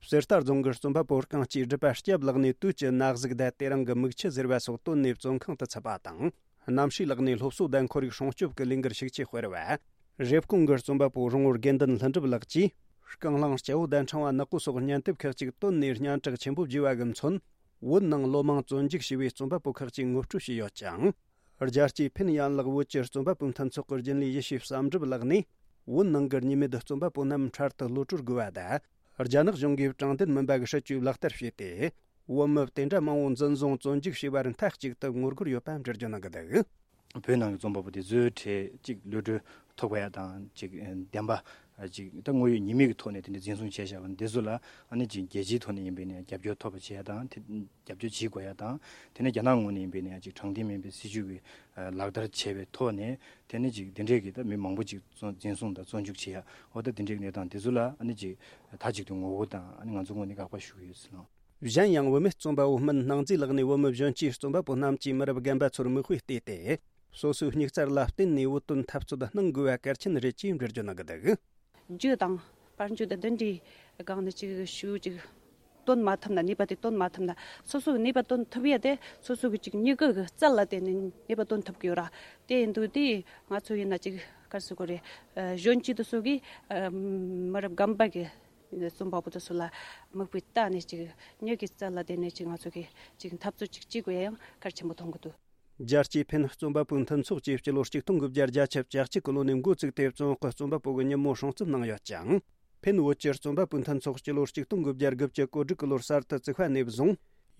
གསེར་རྟ་རྫོང་གི་རྩོམ་པ་པོ་རྐང་གཅིག་སྒྲུབ་པ་སྐྱབས་ལགས་ནས་དུས་ཀྱི་ན་ཟུག་དང་དེ་རིང་གི་མིག་ཆུ་ཟེར་བ་སོགས་བཏོན་ནས་བཙོན་ཁང་དུ་ཚུད་པ་དང་། རྣམ་ཤེས་ལགས་ནས་སློབ་གསོ་དང་ཁོར་ཡུག་སྲུང་སྐྱོབ་ཀྱི་ལས་འགུལ་ཤུགས་ཆེ་སྤེལ་བ། རེབ་གོང་གི་རྩོམ་པ་པོ་རོང་བོ་དགེ་འདུན་ལྷུན་གྲུབ་ལགས་ཀྱིས། རྐང་གླང་སྐྱ་བོ་དང་ཕྲེང་བ་ནག་པོ་སོགས་སྙན་དེབ་ཁག་ཅིག་བཏོན་ནས་སྙན་གྲགས་ཆེན་པོ་བརྒྱུས་པ་གི་མཚོན། བོད་ནང་ལོ་མང་བཙོན་འཇུག་བྱས་པའི་རྩོམ་པ་པོ་ཁག་ཅིག་ངོ་སྤྲོད་བྱས་ཡོད་ཅིང་། རྒྱལ་སྤྱིའི་ཕན་ཡན་ལག་བོད་ཀྱི་རྩོམ་པ་པོའི་མཐུན་ཚོགས་ཀྱི་རྒྱུན་ལས་ཡེ་ཤེས་བསམ་གྲུབ་ལགས་ནས། བོད་ནང་གི་གཉིས་མེད་རྩོམ་པ་པོ་རྣམས་འཕྲལ་དུ་གློད་གྲོལ་དགོས་པ་དང་། རྒྱ་ནག་གཞུང་གིས་དྲང་བདེན་མིན་པ་གི་སྲིད་ཇུས་ལག་བསྟར་བྱས་ཏེ། བོད་མི་དེ་འདྲ་མང་བོ་འཛིན་བཟུང་བཙོན་འཇུག་བྱས་པར་མཐའ་གཅིག་ཏུ་ངོ་རྒོལ་ཡོད་པ་འགྲེལ་བརྗོད་གནང་གི་འདུག། བོད་ནང་གི་རྩོམ་པ་པོ་དེ་ཚོའི་གྲས་གཅིག་གློད་གྲོལ་ཐོབ་པ་ཡ་དང་གཅིག་བདེན་པ་ ཅིག་ད་དངོས་ཡོད་ཉེས་མིང་གི་ཐོག་ནས་དེ་འདྲ་འཛིན་བཟུང་བྱས་བཞག་པ་འདི་ཚོ་ལ་ཨ་ནི་ཅིག་རྒྱལ་སྤྱིའི་ཐོག་ནས་ཡིན་པའི་ནས་རྒྱབ་སྐྱོར་ཐོབ་པ་བྱེད་ཡ་དང་དེ་རྒྱབ་སྐྱོར་བྱེད་དགོས་ཡ་དང་དེ་ནས་རྒྱ་ནག་ངོས་ནས་ཡིན་པའི་ནས་ཅིག་དྲང་བདེན་མིན་པའི་སྲིད་བྱུས་ཀྱི་ལག་བསྟར་བྱས་པའི་ཐོག་ནས་དེ་ནས་ཅིག་འདི་འདྲས་ཀྱི་ད་མི་མང་པོ་ཅིག་བཙོན་འཛིན་བཟུང་དང་བཙོན་འཇུག་བྱེད་ཡ་འོ་ད་འདི་འདྲས་ཀྱི་གནས་སྟངས་འདི་ཚོ་ལ་ཨ་ནི་ཅིག་མཐའ་གཅིག་ཏུ་ངོ་རྒོལ་དང་ཨ་ནི་ང་ཚོ་ངོས་ནས་དགག་པ་ཞུ་གི་ཡོད་ཟེར་ལ། གཞན་ཡང་བུད་མེད་རྩོམ་པ་བོ་སྨན་སྣང་མཛེས་ལགས་ནས་བོད་མི་གཞོན་སྐྱེས་རྩོམ་པ་པོ་རྣམས་ཀྱིས་མི་རབས་རྒན་པ་ཚོར་མིག་དཔེ་བལྟས་ཏེ། སོ་སོའི་སྙིགས་རྩར་ལ་བརྟེན་ནས་བོད་དོན་འཐབ་རྩོད་གནང་དགོས་པ་གལ་ཆེན་རེད་ཅེས་འགྲེལ་བརྗོད་གནང་གི་འདུག་རྒྱུ་དང་དཔལ་འབྱོར་དང་འདི་འདྲའི་སྒང་ནས་ཅིག་ཞུ་ཅིག་སྟོན་མ་ཐུབ་ན་ནུས་པ་དེ་སྟོན་མ་ཐུབ་ན་སོ་སོ་གི་ནུས་པ་སྟོན་ཐུབ་ཡ་དེ་སོ་སོ་གི་ཅིག་མྱུ་གུ་གི་རྩལ་ལ་བརྟེན་ནས་ནུས་པ་སྟོན་ཐུབ་ཀྱི་ཡོད་ར། དེ་ཡིན་དུས་དེ་ང་ཚོ་ཡིན་ན་ཅིག་ག་རེ་ཟེར་དགོས་རེད། གཞོན་སྐྱེས་དེ་ཚོ་གིས་མི་རབས་རྒན་པ་གི་རྩོམ་པ་པོ་དེ་ཚོ་ལ་མིག་དཔེ་བལྟས་ནས་ཅིག་མྱུ་གུའི་རྩལ་ལ་བརྟེན་ནས་ཅིག་ང་ཚོ་གིས་ཅིག་འཐབ་རྩོད་ཅིག་བྱེད་དགོས་ཡ་ཡང་གལ་ཆེན་པོ་མཐོང་གི་འདུག་རྒྱལ་སྤྱིའི་ཕན་རྩོམ་པ་པོའི་མཐུན་ཚོགས་ཀྱིས་སྤྱི་ལོ་ཆིག་སྟོང་དགུ་བརྒྱ་བརྒྱད་ཅུ་གྱ་གཅིག་གི་ལོ་ནས་འགོ་བཙུགས་ཏེ་བཙོན་དཔང་རྩོམ་པ་པོ་གི་ཉིན་མོ་སྲུང་བརྩི་གནང་ཡོད་ཅིང་། ཕན་བོད་ཀྱི་རྩོམ་པ་པོའི་མཐུན་ཚོགས་སྤྱི་ལོ་ཆིག་སྟོང་དགུ་བརྒྱ་དགུ་བཅུ་གོ་དྲུག་གི་ལོར་གསར་དུ་བཙུགས་པ་ནས་བཟུང་།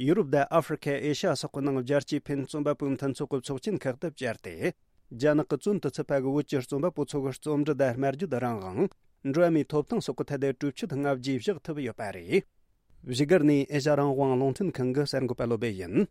ཡུ་རོབ་དང་ཨ་ཧྥེ་རི་ཁ་ཨེ་ཤ་ཡ་སོགས་ཀྱི་ནང་རྒྱལ་སྤྱིའི་ཕན་རྩོམ་པ་པོའི་མཐུན་ཚོགས་ཀྱི་ཚོགས་ཆེན་ཁག་ཏུ་བཅར་ཏེ། རྒྱ་ནག་གི་བཙོན་དུ་ཚུད་པ་གི་བོད་ཀྱི་རྩོམ་པ་པོ་ཚོ་གི་རྩོམ་འབྲི་དང་སྨྲ་བརྗོད་རང་དབང་། འགྲོ་བ་མིའི་ཐོབ་ཐང་སོགས་ཀྱི་ཐད་དུ་གྲོས་ཆོད་ལྔ་བརྒྱ་བཞག་ཐུབ་ཡོད་པ་རེད། བཞུགས་སྒར་ནས་ཨེ་ཤ་རང་དབང་རླུང་འཕྲིན་ཁང་གི་གསར་འགོད་པ་བློ་སྦེ་ཡིན།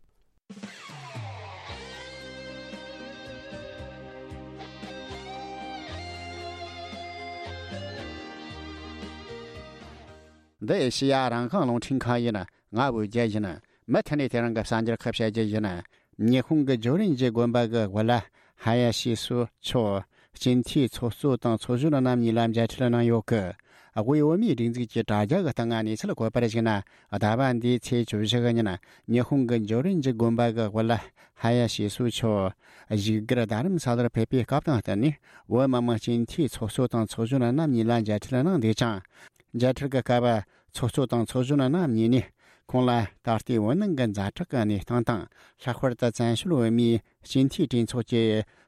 འདི་ཨེ་ཤེ་ཡ་རང་དབང་རླུང་འཕྲིན་ཁང་ཡིན། ང་བོད་རྒྱལ་ཡིན། མུ་མཐུད་ནས་དེ་རིང་གི་གསར་འགྱུར་ཁག་བཤད་རྒྱུ་ཡིན། ཉི་ཧོང་གི་ཇོ་རིན་ཇི་དགོན་པ་གི་དབུ་བླ་ཧ་ཡ་ཤི་སུ་མཆོག་སྤྱི་འཐུས་ཚོགས་གཙོ་དང་ཚོགས་གཞོན་རྣམ་གཉིས་ལ་མཇལ་འཕྲད་གནང་ཡོད་གི། དབུས་བོད་མིའི་སྒྲིག་འཛུགས་ཀྱི་དྲ་རྒྱ་གི་སྟེང་ང་གནས་ཚུལ་འཁོད་པར་གཞིགས་ན། ཟླ་བ་འདིའི་ཚེས་བཅུ་བཞི་གི་ཉིན་ཉི་ཧོང་གི་ཇོ་རིན་ཇི་དགོན་པ་གི་དབུ་བླ་ཧ་ཡ་ཤི་སུ་མཆོག་བཞུགས་སྒར་རྡ་རམ་ས་ལར་ཕེབས་པའི་སྐབས་དང་བསྟུན་ནས་བོད་མི་མང་སྤྱི་འཐུས་ཚོགས་གཙོ་དང་ཚོགས་གཞོན་རྣམ་གཉིས་ལ་མཇལ་འཕྲད་གནང་འདུག་ཅིང་། མཇལ་འཕྲད་ཀྱི་སྐབས། ཚོགས་གཙོ་དང་ཚོགས་གཞོན་རྣམ་གཉིས་ནས་ཁོང་ལ་ད་ལྟའི་བོད་ནང་གི་ཛ་དྲག་གི་གནས་སྟངས་དང་། ལྷག་པར་དུ་བཙན་བྱོལ་བོད་མིའི་སྤྱི་འཐུས་གྲོས་ཚོགས་ཀྱི་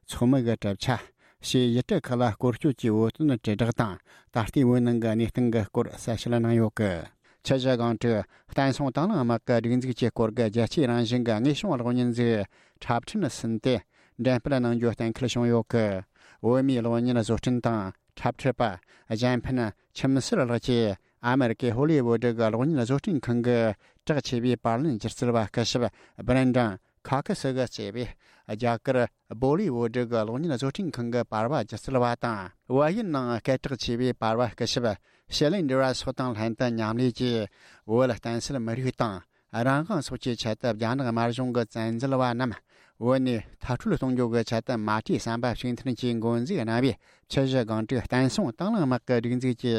ཚོགས་མི་གི་གྲུབ་ཆ། ཞེས་ཡུལ་གྲུ་ཁག་ལ་སྐོར་སྐྱོད་ཀྱིས་བོད་དོན་དྲིལ་བསྒྲགས་དང་ད་ལྟའི་བོད་ནང་གི་གནས་སྟངས་ཀྱི་སྐོར་གསལ་བཤད་གནང་ཡོད་གི། ཆུ་བཞི་སྒང་དྲུག་བསྟན་སྲུང་དང་བླངས་དམག་གི་སྒྲིག་འཛུགས་ཀྱི་སྐོར་གྱི་རྒྱལ་སྤྱིའི་རང་བཞིན་གྱི་དངོས་བྱུང་གློག་བརྙན་ཟིག་འཁྲབ་ཁྲིད་ནས་ཟིན་ཏེ་འགྲེམས་སྤེལ་གནང་རྒྱུ་གཏན་འཁེལ་བྱུང་ཡོད་གི། བོད་མིའི་གློག་བརྙན་བཟོ་སྐྲུན་དང་འཁྲབ་ཁྲིད་པ་གཞན་ཕན་ཁྱིམ་གསར་ལགས་ཀྱིས་ཨ་མེ་རི་ཀའི་ཧོ་ལི་ཝུ་ཌི་གི་གློག་བརྙན་བཟོ་སྐྲུན་ཁང་གི་གྲགས་ཆེ་བའི་པར་ལེན་སྒྱུ་རྩལ་བ་སྐུ་ཞབས་བྷི་རེན་ཌན་ཁ་ཁི་སི་གིས་གཙོས་པའི་རྒྱ་གར་བོ་ལི་ཝུ་ཌི་གི་གློག་བརྙན་བཟོ་སྐྲུན་ཁང་གི་པར་བ་སྒྱུ་རྩལ་བ་དང་། བལ་ཡུལ་ནང་སྐད་གྲགས་ཆེ་བའི་པར་བ་སྐུ་ཞབས་ཤེ་ལིན་ཌི་ར་སོགས་དང་ལྷན་དུ་མཉམ་ལས་ཀྱིས་བོད་བསྟན་སྲིད་མི་རིགས་དང་། རང་དབང་སོགས་ཀྱི་ཆེད་དུ་རྒྱ་ནག་དམར་གཞུང་གི་བཙན་འཛུལ་བ་རྣམས་བོད་ནས་མཐར་སྐྲོད་གཏོང་རྒྱུ་གི་ཆེད་དུ་མ་བྲོས་བསམ་པ་གཅིག་མཐུན་གྱིས་འགོ་འཛུགས་གནང་བའི་ཆུ་བཞི་སྒང་དྲུག་བསྟན་སྲུང་དང་བླངས་དམག་གི་སྒྲིག་འཛུགས་ཀྱི་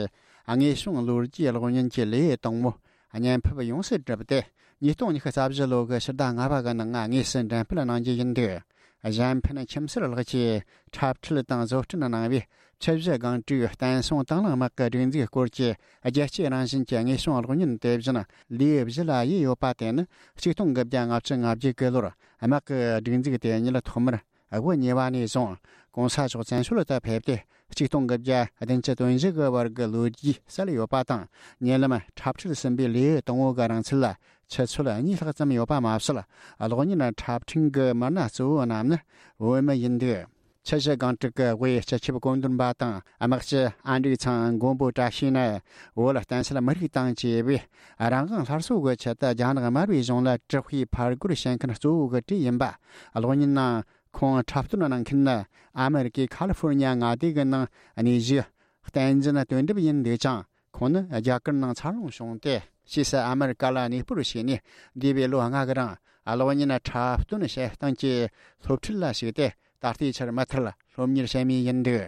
དངོས་བྱུང་ལོ་རྒྱུས་གློག་བརྙན་གྱི་ལེའུ་དང་པོ་བརྙན་ཕབ་ཡོངས་སུ་གྲུབ་སྟེ། ཉིས་སྟོང་ཉི་ཤུ་རྩ་བཞི་ལོ་གི་ཕྱི་ཟླ་ལྔ་པ་གི་ནང་དངོས་སུ་འགྲེམས་སྤེལ་གནང་རྒྱུ་ཡིན་འདུག་གཞན་ཕན་ཁྱིམ་གསར་ལགས་ཀྱིས་འཁྲབ་ཁྲིད་དང་བཟོ་སྐྲུན་གནང་བའི་ཆུ་བཞི་སྒང་དྲུག་བསྟན་སྲུང་དང་བླངས་དམག་གི་སྒྲིག་འཛུགས་སྐོར་གྱི་རྒྱལ་སྤྱིའི་རང་བཞིན་གྱི་དངོས་བྱུང་གློག་བརྙན་དེ་བཞིན་ལེའུ་བཞི་ལ་དབྱེ་ཡོད་པ་དེ་ནི་ཆིག་སྟོང་དགུ་བརྒྱ་ལྔ་བཅུ་ང་བརྒྱད་གི་ལོར་དམག་གི་སྒྲིག་འཛུགས་དེ་ཉིད་ཐོག་མར་དབུ་བརྙེས་པ་ནས་བཟུང་གོང་ས་མཆོག་བཙན་བྱོལ་དུ་ཕེབས་ཏེ་ཆིག་སྟོང་དགུ་བརྒྱ་བདུན་ཅུ་དོན་བཞི་གི་བར་གྱི་ལོ་རྒྱུས་གསལ་ཡོད་པ་དང་། ཉེ་ལམ་འཁྲབ་ཁྲིད་ཟིན་པའི་ལེའུ་དང་པོ་གི་རིང་ཚད་ལ་ཆུ་ཚོད་གཉིས་ལྷག་ཙམ་ཡོད་པ་མ་ཟད། གློག་བརྙན་འཁྲབ་ཁྲིད་ཀྱི་མི་སྣ་གཙོ་བོ་རྣམས་ནི་བོད་མི་ཡིན་འདུག་ཆུ་བཞི་སྒང་དྲུག་གི་དབུས་སྤྱི་ཁྱབ་བཀོད་འདོམས་པ་དང་དམག་སྤྱི་ཨན་ཀྲིག་ཚང་མགོན་པོ་བཀྲ་ཤིས་ནི་བོད་བསྟན་སྲིད་མི་རིགས་དང་བཅས་པའི་རང་དབང་སླར་གསོ་གི་ཆེད་དུ་རྒྱ་ནག་དམར་པོའི་གཞུང་ལ་དྲག་པོའི་ཕར་རྒོལ་བྱེད་མཁན་གཙོ་བོ་གི་གྲས་ཡིན་པ། གློག་བརྙན་ནང་ཁོང་འཁྲབ་སྟོན་གནང་མཁན་ནི་ཨ་མེ་རི་ཀའི་ཁ་ལི་ཧྥོར་ཉ་མངའ་སྡེ་གི་ནང་གནས་བཞུགས་བསྟན་འཛིན་དོན་གྲུབ་ཡིན་འདུག་ཅིང་། ཁོང་ནི་རྒྱ་གར་ནང་འཚར་ལོངས་བྱུང་སྟེ། ཕྱིས་སུ་ཨ་མེ་རི་ཀ་ལ་གནས་སྤོར་བྱས་ནས། འདས་པའི་ལོ་ལྔ་གི་རིང་གློག་བརྙན་འཁྲབ་སྟོན་བྱེད་སྟངས་ཀྱི་སློབ་ཁྲིད་ལ་ཞུགས་ཏེ། ད་ལྟའི་ཆར་མུ་མཐུད་སློབ་གཉེར་བྱེད་མུས་ཡིན་འདུག་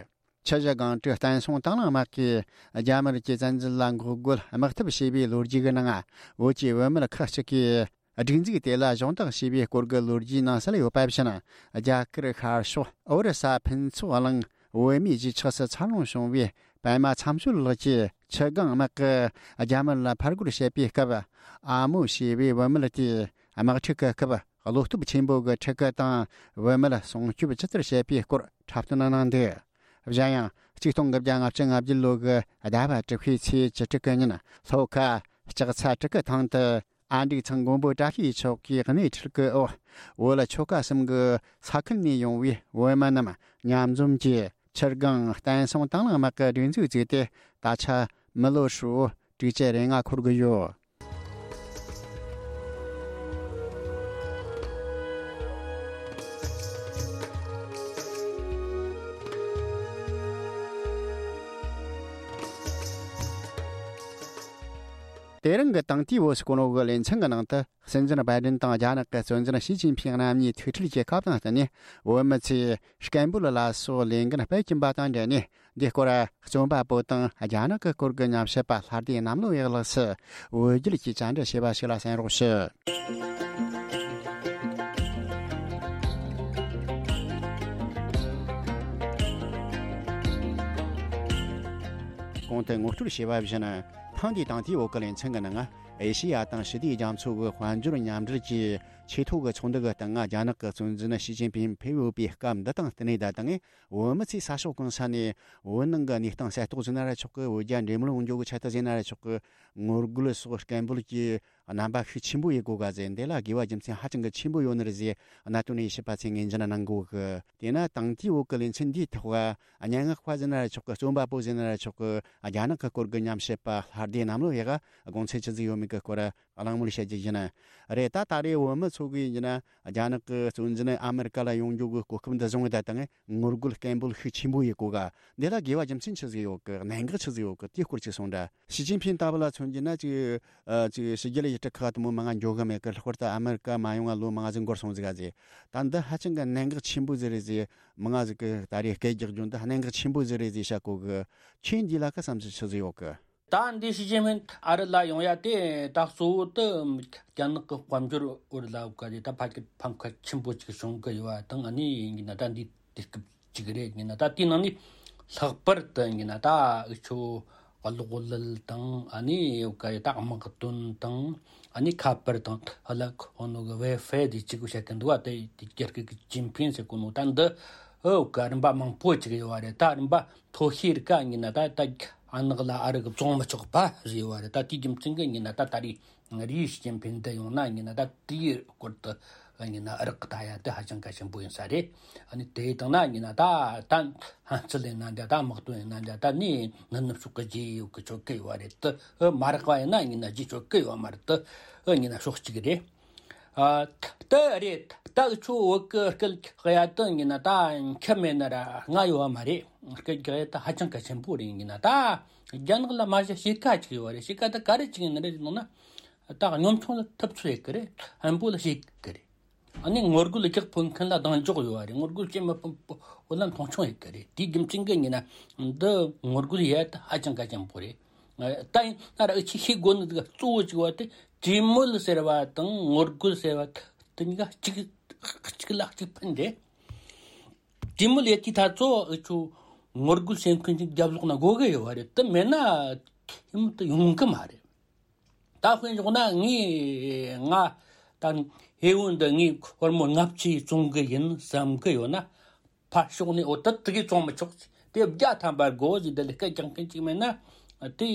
ཆུ་བཞི་སྒང་དྲུག་བསྟན་སྲུང་དང་བླངས་དམག་གིས་རྒྱ་དམར་གྱི་བཙན་འཛུལ་ལ་འགོག་རྒོལ་དམག་འཐབ་བྱས་པའི་ལོ་རྒྱུས་ཀྱི་ནང་། བོད་ཀྱི་བུད་མེད་ཁག་ཅིག་གིས། སྒྲིག་འཛུགས་དེ་ལ་གཞོགས་འདེགས་བྱས་པའི་སྐོར་གྱི་ལོ་རྒྱུས་ནང་གསལ་ཡོད་པ་བཞིན། རྒྱ་གར་ཤར་ཕྱོགས་ཨོ་རི་ས་ཕུན་ཚོགས་གླིང་བོད་མིའི་གཞིས་ཆགས་སུ་འཚར་ལོངས་བྱུང་བའི་པད་མ་མཚམས་གཅོད་ལགས་ཀྱིས་ཆུ་སྒང་དམག་གིས་རྒྱ་དམར་ལ་ཕར་རྒོལ་བྱེད་པའི་སྐབས། ཨ་མོ་ཞེས་པའི་བུད་མེད་དེས་དམག་འཁྲུག་གི་སྐབས་བློ་སྟོབས་ཆེན་པོ་གི་ཕྲུ་གུ་དང་བུད་མེད་སྲུང་སྐྱོབ་ཇི་ལྟར་བྱེད་པའི་སྐོར་འཁྲབ་སྟོན་གནང་འདུག་གཞན་ཡང་། ཆིག་སྟོང་དགུ་བརྒྱ་ལྔ་བཅུ་ང་བརྒྱད་ལོ་གི་ཟླ་བ་དྲུག་པའི་ཚེས་བཅུ་དྲུག་གི་ཉིན། ལྷོ་ཁ་ལྕགས་ཚ་གྲི་གུ་ཐང་དུ། ཨ་འབྲུག་ཚང་མགོན་པོ་བཀྲ་ཤིས་མཆོག་གིས་སྣེ་ཁྲིད་སྐུལ་འོག་བོད་ལ་ཆོལ་ཁ་གསུམ་གྱི་ས་ཁུལ་ནས་ཡོང་བའི་བོད་མི་རྣམས་མཉམ་འཛོམས་ཀྱིས་ཆུ་སྒང་བསྟན་སྲུང་དང་བླངས་དམག་གི་སྒྲིག་འཛུགས་བཙུགས་ཏེ། ད་ཆ་མི་ལོ་ཧྲིལ་བོ་དྲུག་ཅུ་རེ་ལྔ་འཁོར་གི་ཡོད། དེ་རིང་གི་དང་ཐོག་བོད་སྐོར་གི་ལེ་ཚན་གྱི་ནང་དུ། སྲིད་འཛིན་བྷའི་ཌེན་དང་རྒྱ་ནག་གི་གཙོ་འཛིན་ཞི་ཅིན་ཕིང་རྣམ་གཉིས་ཐུག་འཕྲད་བྱེད་སྐབས་དང་བསྟུན་ནས། བོད་མི་ཚོས་སྐད་འབོད་ལ་སོགས་ལས་འགན་སྤེལ་གྱིན་པ་དང་འབྲེལ་ནས། འདིའི་སྐོར་རྩོམ་པ་པོ་དང་རྒྱ་ནག་གི་སྐོར་གྱི་ཉམས་ཞིབ་པ་ལྷ་སྡེ་གནམ་ལོ་ཡག་ལགས་སུ་བོད་རྒྱུད་ཀྱི་བཅར་འདྲི་བྱས་པ་ཞིག་ལ་གསན་རོགས་ཞུ། གོང་དུ་ངོ་སྤྲོད་བྱས་པ་བཞིན། ཐེངས་འདིའི་དང་ཐོག་བོད་སྐད་ལེ་ཚན་གྱི་ནང་། ཨེ་ཤེ་ཡ་དང་ཞི་བདེའི་རྒྱ་མཚོ་གི་དཔལ་འབྱོར་མཉམ་འབྲེལ་གྱི་ཆེས་མཐོ་གི་ཚོགས་འདུ་གི་སྟེང་། རྒྱ་ནག་གི་གཙོ་འཛིན་ཞི་ཅིན་ཕིང་ཕེབས་ཡོད་པའི་སྐབས་འདི་དང་བསྟུན་ནས། ད་ཐེངས་བོད་མི་ཚོས་ས་ཕྱོགས་གང་ས་ནས་བོད་ནང་གི་གནས་སྟངས་གསལ་རྟོགས་ཟེར་ན་ར་ཆོག་གི། བོད་རྒྱ་འབྲེལ་མོལ་ཡོང་རྒྱུ་གི་ཆེད་དུ་ཟེར་ན་ར་ཆོག་གི། ངོ་རྒོལ་སོགས་སྐད་འབོད་ཀྱི་རྣམ་པ་ཤུགས་ཆེན་པོ་ཡོད་གོ་ག་ཟེར། འདི་ལ་དགོས་པ་རྒྱུ་མཚན་ཧ་ཅང་གི་ཆེན་པོ་ཡོད་ནི་རེད་ཟེར། གནད་དོན་ནི་ཞིབ་པ་ཚོས་ངོས་འཛིན་གནང་གོ་གི། དེས་ན་དང་ཐོག་བོད་སྐད་ལེ་ཚན་འདིའི་ཐོག་སྙན་ངག་པ་ཟེར་ན་ར་ཆོག་གི། རྩོམ་པ་པོ་ཟེར་ན་ར་ཆོག་གི། རྒྱ་ནག་གི་སྐོར་གྱི་ཉམས་ཞིབ་པ་ལྷ་སྡེ་གནམ་ལོ་ཡག་ག་དགོངས་ཚུལ་ཆི་ཟིག་ཡོད་མེད་ཀྱི་སྐོར་གླེང་མོལ་བྱ་རྒྱུ་ཡིན། རེད། ད་ད་རེས་བོད་མི་ཚོ་གིས་ཡིན་ན་རྒྱ་ནག་གི་གཙོ་འཛིན་ཨ་མེ་རི་ཀ་ལ་ཡོང་རྒྱུ་གི་གོ་སྐབས་འདི་བཟུང་བའི་ད་ཐེངས་ངོ་རྒོལ་སྐད་འབོད་ཤུགས་ཆེན་པོ་ཡོད་གོ་ག། འདི་ལ་དགོས་པ་རྒྱུ་མཚན་ཆི་ཟིག་ཡོད་གི། གནད་འགག་ཆི་ཟིག་ཡོད་གི། དེའི་སྐོར་ཅིག་གསུངས་དྲ། ཞི་ཅིན་ཕིང་ལྟ་བུ་ལ་མཚོན་རྒྱུ་ན་ཅིག་ཨ། ཅིག་ཕྱི་རྒྱལ་ཡུལ་གྲུ་ཁག་དེ་མོ་མང་ང་འགྱོ་གི་མེད་གི། ལྷག་པར་དུ་ཨ་མེ་རི་ཀ་མ་ཡོང་བ་ལོ་མང་ཟིག་འགོར་སོང་ཟིག་ག་ཟེར། ད་འདི་ཧ་ཅང་གི་གནད་འགག་ཆེན་པོ་ཟིག་རེད་ཟེར། མང་ང་ཟིག་གི་ད་རེས་སྐད་རྒྱག་རྒྱུ་འདི་གནད་འགག་ཆེན་པོ་ཟིག་རེད་ཟེར་བཤད་གོ་གི། ཁྱེད་འདི་ལ་ཁ་བསམ་ཚུལ་ཆི་ཟིག་ཡོད་གི། ད་འདི་ཞི་ཅིན་ཕིང་ཨ་རི་ལ་ཡོང་ཡ་དེ་ད་གཙོ་བོ་དེ་རྒྱ་ནག་གི་དཔལ་འབྱོར་བོད་ལ་ག་རེ་ད་ཕ་གི་ཕམ་ཁ་ཆེན་པོ་ཅིག་བྱུང་གི་ཡོད་པ་དང་། ཨ་ནི་ཡིན་གྱི་ན་ད་འདི་དུས་སྐབས་ཅིག་རེད། ཡིན་ན་ད་དེའི་ནང་ནས་ལྷག་པར་དུ་ཡིན་ན་ད་འུ་ཆོ་གློག་ཀླད་དང་། ཨ་ནི་ག་རེ་ད་དམག་དོན་དང་། ཨ་ནི་ཁ་པར་དང་། ཧ་ལ་ཁོ་ནོ་གི་ཝའི་ཧྥའི་དེ་གཅིག་པུ་བཤད་གི་འདུག་བ། དེ་དེ་རྒྱ་སྐད་གི་ཅིན་ཕིང་ཟེར་གོ་ནོ་ད་འདི་ཨོ་ག་རིམ་པ་མང་པོ་ཅིག་ཡོད་བ་རེད། ད་རིམ་པ་མཐོ་ཤོས་རིགས་ཀ་ཡིན་ན་ད་ད་ཨ་ནག་ལ་ཨ་རི་གི་བཙོང་མི་ཆོག་པ་ཟེར་ཡོད་བ་རེད། ད་དེའི་རྒྱུ་མཚན་གི་ཡིན་ན་ད་ད་རེས་རེད། ཞི་ཅིན་ཕིང་འདི་ཡོང་ན་ཡིན་ན་ད་དེའི་སྐོར་དུ་ཡིན་ན་རག་གི་ད་ཡ་དེ་ཧ་ཅང་གལ་ཆེན་པོ་ཡིན་ས་རེད། ཨ་ནི་དེ་དང་ན་ཡིན་ན་ད་ད་ཕན་ཚུན་ཡིན་ན་འདྲ། ད་དམག་དོན་ཡིན་ན་འདྲ། ད་ནི་ནི་ནུབ་ཕྱོགས་གི་རྗེས་ཡོད་གི་ཆོད་གི་ཡོད་རེད། དེ་མ་རག་པ་ཡིན་ན་ཡིན་ན་རྗེས་ཆོད་གི་ཡོད་མ་རེད། དེ་ཡིན་ན་ཕྱོགས་གཅིག་རེད། ཨ། དེ་རེད། ད་འུ་ཆོ་བོད་གི་སྐད་གཡར་དོན་ཡིན་ན་ད་ཁྱབ་མེད་ན་ར་ང་ཡོད་བ་མ་རེད། སྐད་གཡར་ད་ཧ་ཅང་གལ་ཆེན་པོ་རེད། ཡིན་ན་ད་རྒྱ་ནག་ལ་མ་གཞི་ཕྱེད་ཀ་ཅིག་ཡོད་རེད། ཕྱེད་ཀ་ད་ག་རེ་ཅིག་ཡིན་ནི་རེད་ཟེར་ན། ད་གཉོམ་ཆུང་ལ་ཐུབ་ཚོད་ཡོད་གི་རེད། ཧན་པོ་ལ་ཕྱེད་གི་རེད། ཨ་ནི་ངོ་རྒོལ་རྒྱག་ཕོད་མཁན་ལ་གདེང་འཇོག་ཡོད་རེད། ངོ་རྒོལ་བྱེད་མི་ཕོད་པོ་ལ་མཐོང་ཆུང་ཡོད་གི་རེད། དེའི་རྒྱུ་མཚན་གི་ཡིན་ན་འདི་ངོ་རྒོལ་ཡས་ད་ཧ་ཅང་གལ་ཆེན་པོ་རེད། ད་ཡིན་ན་ར་འུ་ཆོས་ཤེས་དགོས་ནི་གཙོ་བོ་གཅིག་བ་དེ་གྲོས་མོལ་ཟེར་བ་དང་ངོ་རྒོལ་ཟེར་བ་དེ་གཉིས་ཀ་གཅིག་གཅིག་ལ་གཅིག་ཕན་རེད། གྲོས་མོལ་ཡེད་དུས་ད་གཙོ་བོ་འུ་ཆོ་ངོ་རྒོལ་བྱེད་མཁན་གྱི་རྒྱབ་ལོགས་ན་དགོས་གི་ཡོད་བ་རེད། དེ་མེད་ན་ཁྱིམ་དུ་ཡོང་གི་མ་རེད། ད་དཔེ་འཇོག་ན་ངས་ང་ད་ཧེ་བོ་འདི་ངས་ཧོར་མོ་ལྔ་བཅུ་བཙོང་གི་ཡིན་བསམ་གི་ཡོད་ན། ཕར་ཕྱོགས་ནས་འོ་ད་དེ་གས་བཙོང་མི་ཆོག་ཟེར། དེ་བརྒྱ་ཐམ་པ་དགོས་ཟེར། དེ་ལས་སྐད་རྒྱག་མཁན་ཅིག་མེད་ན། དེ་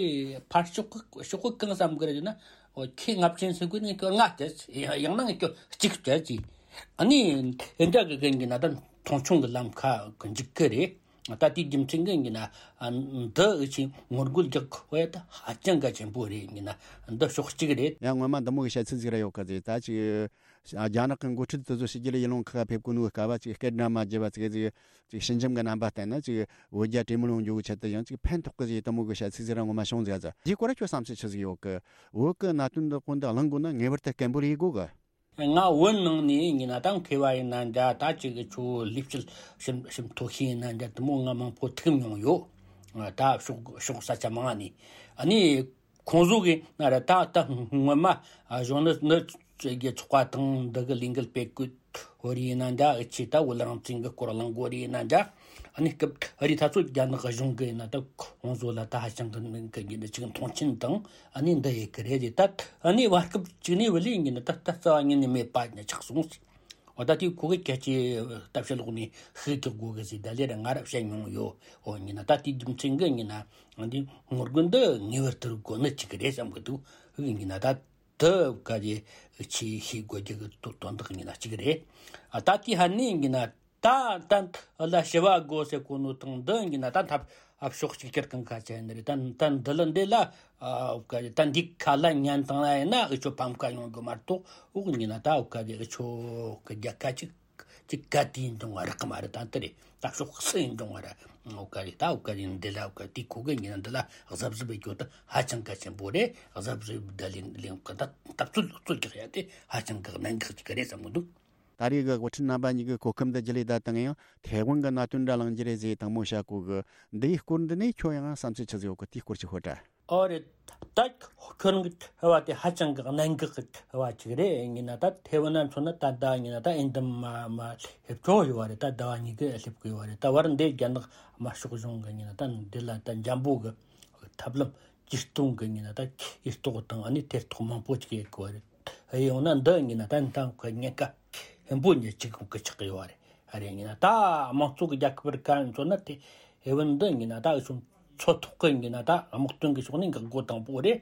ཕར་ཕྱོགས་གི་ཕྱོགས་གི་གང་བསམ་གི་རེད་ཟེར་ན། འོ་ཁྱེད་ལྔ་བཅུ་ཟེར་གི་ནས་ཁྱོད་ལྔ་སྤྲད་ཟེར། ཡང་ན་ངས་ཁྱོད་གཅིག་སྤྲད་ཟེར། ཨ་ནི་དེ་འདྲ་གི་གན་གི་ན་ད་མཐོང་ཆུང་གི་ལམ་ཁ་གི་འཇུག་གི་རེད། ད་དེའི་རྒྱུ་མཚན་གི་ཡིན་ན་འདི་འུ་ཆོས་ངོ་རྒོལ་རྒྱག་དགོས་ཡ་ད་ཧ་ཅང་གལ་ཆེན་པོ་རེད། ཡིན་ན་འདི་ཕྱོགས་གཅིག་རེད། ཡང་སྔོན་མ་འདི་མོ་གི་བཤད་ཚུལ་ཟིག་ར་ཡོད་གི་ཟེར། ད་ཅིག་རྒྱ་ནག་གི་འགོ་ཁྲིད་དེ་ཚོ་ཕྱི་རྒྱལ་ཡུལ་ལུང་ཁག་ཕེབས་གོ་ནོའི་སྐབས་ཅིག་སྐད་སྒྲ་མ་བརྗེད་པ་ཟིག་ཟིག་ཅིག་ཞི་འཇམ་གི་རྣམ་པ་བསྟན་ན། ཅིག་བོད་རྒྱ་གྲོས་མོལ་ཡོང་རྒྱུ་གི་ཆེད་དུ་ཡང་ཅིག་ཕན་ཐོགས་གི་ཟེར། འདི་མོ་གི་བཤད་ཚུལ་ཟིག་ར་སྔོན་མ་བྱུང་ཟིག་ཟེར། འདིའི་སྐོར་ཁྱོད་བསམ་ཚུལ་ཆི་ཟིག་ཡོད་གི། བོད་གི་གནད་དོན་འདི་གོ་འདི་གླེང་དགོས་ན་ངེས་པར་དུ་སྐད་འབོད་ཡེད་དགོས་གི། ང་བོད་ནང་ནས་ཡིན་ན་ད་མཁས་པ་ཡིན་ན་འདྲ། ད་ཅིག་ཁྱོད་ལས་བྱེད་ཞིབ་ཞིབ་མཐོ་ཤོས་ཡིན་ན་འདྲ། དེ་མོ་ང་མང་པོ་ཐུག་མྱོང་ཡོད། ད་ཕྱོགས་ཕྱོགས་ས་ཆ་མང་ནས། ཨ་ནི་ཁོང་ཚོ་གིས་ན་ར་ད་ད་སྔོན་མ་གཞོན་ནུ་ནུ་གི་ཚོགས་པ་དང་འདི་གི་ལས་འགུལ་སྤེལ་སྐུད་བོ་རི་ཡིན་ན་འདྲ། འུ་ཆོས་ད་བོད་རང་བཙན་གི་སྐོར་གླེང་དགོས་རི་ཡིན་ན་འདྲ། ཨ་ནི་སྐབས་ཨ་རི་ད་ཚོ་རྒྱ་ནག་གཞུང་གི་ཡིན་ན་ད་ཁོང་ཚོ་ལ་ད་ཧ་ཅང་གི་མིང་གི་ཡིན་ན་ཅིག་མཐོང་ཆེན་དང་ཨ་ནི་འདི་ཡེད་གི་རེད། ད་ཨ་ནི་བར་སྐབས་ཅིག་ནས་བུ་ལི་ཡིན་ན་ད་ད་རྩ་བ་ཉིད་ནས་མེད་པ་ནས་ཆགས་སོང་ཟེར། འོ་ད་དེ་ཁོ་གི་སྐད་ཆའི་ལྟ་བཤད་ལོག་ནས་ཤུགས་རྒྱག་དགོས་གི་ཟེར། ད་ལས་ར་ང་ར་བཤད་མྱོང་ཡོད། འོ་ཡིན་ན་ད་དེའི་རྒྱུ་མཚན་གི་ཡིན་ན་འདི་ངོ་རྒོལ་འདི་ངེས་པར་དུ་དགོས་ནི་ཅིག་རེད་བསམ་གི་འདུག། ཡིན་ན་ད་དེ་ག་རེ་ཆེས་ཤེས་དགོས་རྒྱུ་གི་དོན་དག་ཡིན་ན་གཅིག་རེད། ཨ་ད་དེ་ཧ་ནི་ཡིན་ན་ད་ད་ལ་ཞི་བ་དགོས་ཟེར་གོ་ནོ་དང་འདི་ཡིན་ན་ད་འཐབ་ ཨ་ཕྱོགས་གཅིག་གྱུར་གང་ཁ་ཆེ་ནི་རེད། ད་ད་འདི་ལ་འདི་ལ་ཨ་འུ་ཀ་རེད། ད་འདི་ཁ་ལ་ཉན་དང་ལ་ཡིན་ན་འུ་ཆོ་ཕམ་ཁ་ཡོང་གི་མ་གཏོགས། འུ་ཉིན་ན་ད་འུ་ཀ་རེད། འུ་ཆོ་གི་རྒྱལ་ཁ་ཅིག་ཅིག་ག་དུས་ཡིན་འབྱུང་བ་རག་གི་མ་རེད། ད་འདི་རེད། ད་ཕྱོགས་སུ་ཡིན་འབྱུང་བ་ར་འུ་ཀ་རེད། ད་འུ་ཀ་རེད། འདི་ལ་འུ་ཀ་དེ་ཁོ་གི་ཉིན་ན་འདི་ལ་གཟབ་གཟབ་བྱེད་རྒྱུ་ད་ཧ་ཅང་གལ་ཆེན་པོ་རེད། གཟབ་གཟབ་ད་ལེན་ལེན་གི་ད་ད་རྩོད་རྩོད་རྒྱག་ཡ་དེ་ཧ་ཅང་གི་གནད་འགག་ཅིག་རེད་བསམ་གི་འདུག། ད་རེས་ཀྱི་དབུ་ཁྲིད་རྣམ་པ་གཉིས་ཀྱི་གོ་སྐབས་འདི་བརྒྱུད་ལས་ད་དང་ཡང་ཐའེ་ཝན་གྱི་གནད་དོན་འདྲ་གླེང་རྒྱུ་རེད་ཟེར་དང་མོ་བཤད་གོ་གི། འདིའི་སྐོར་འདི་ནས་ཁྱོད་ཡང་བསམ་ཚུལ་ཆི་ཟིག་ཡོད་གི། དེའི་སྐོར་ཅིག་ཤོད་དྲ། ཨོ་རེད། ད་ཁྱོད་རང་གི་དྲི་བ་དེ་ཧ་ཅང་གི་གནད་འགག་གི་དྲི་བ་ཅིག་རེད། ཡིན་ན་ད་ཐའེ་ཝན་ན་མཚོན་ན་ད་ད་ཡིན་ན་ད་ཨིན་ད་མ་མ་སླེབས་ཆོག་ཡོད་བ་རེད། ད་ཟླ་བ་གཉིས་ཀྱི་སླེབས་གི་ཡོད་བ་རེད། ད་བར་འདི་རྒྱ་ནག་དམར་ཤོག་གཞུང་གི་ཡིན་ན་ད་འདི་ལ་ད་འཇམ་པོ་གི་ཐབས་ལམ་ཇུས་གཏོང་གི་ཡིན་ན་ད་ཇུས་གཏོགས་དང་ཨ་ནི་ཐེ་གཏོགས་མང་པོ་ཅིག་ཡོད་གི་བ་རེད། ཡོང་ན་འདི་ཡིན་ན་ད་ད་ཁོ་ཉེན་ཁ་ཆེན་པོ་ཉེ་གཅིག་གི་ཆགས་ཡོད་བ་རེད། ཨ་རེ་ཡིན་ན་ད་དམངས་གཙོ་གི་རྒྱལ་ཁབ་རིགས་ཀ་མཚོན་ན་དེ་ཨེ་ཝན་འདི་ཡིན་ན་ད་ཨུ་ཆོ་མཚོ་ཐོག་གི་ཡིན་ན་ད་དམག་དོན་གི་ཕྱོགས་ནས་འགག་སྒོ་དང་པོ་རེད།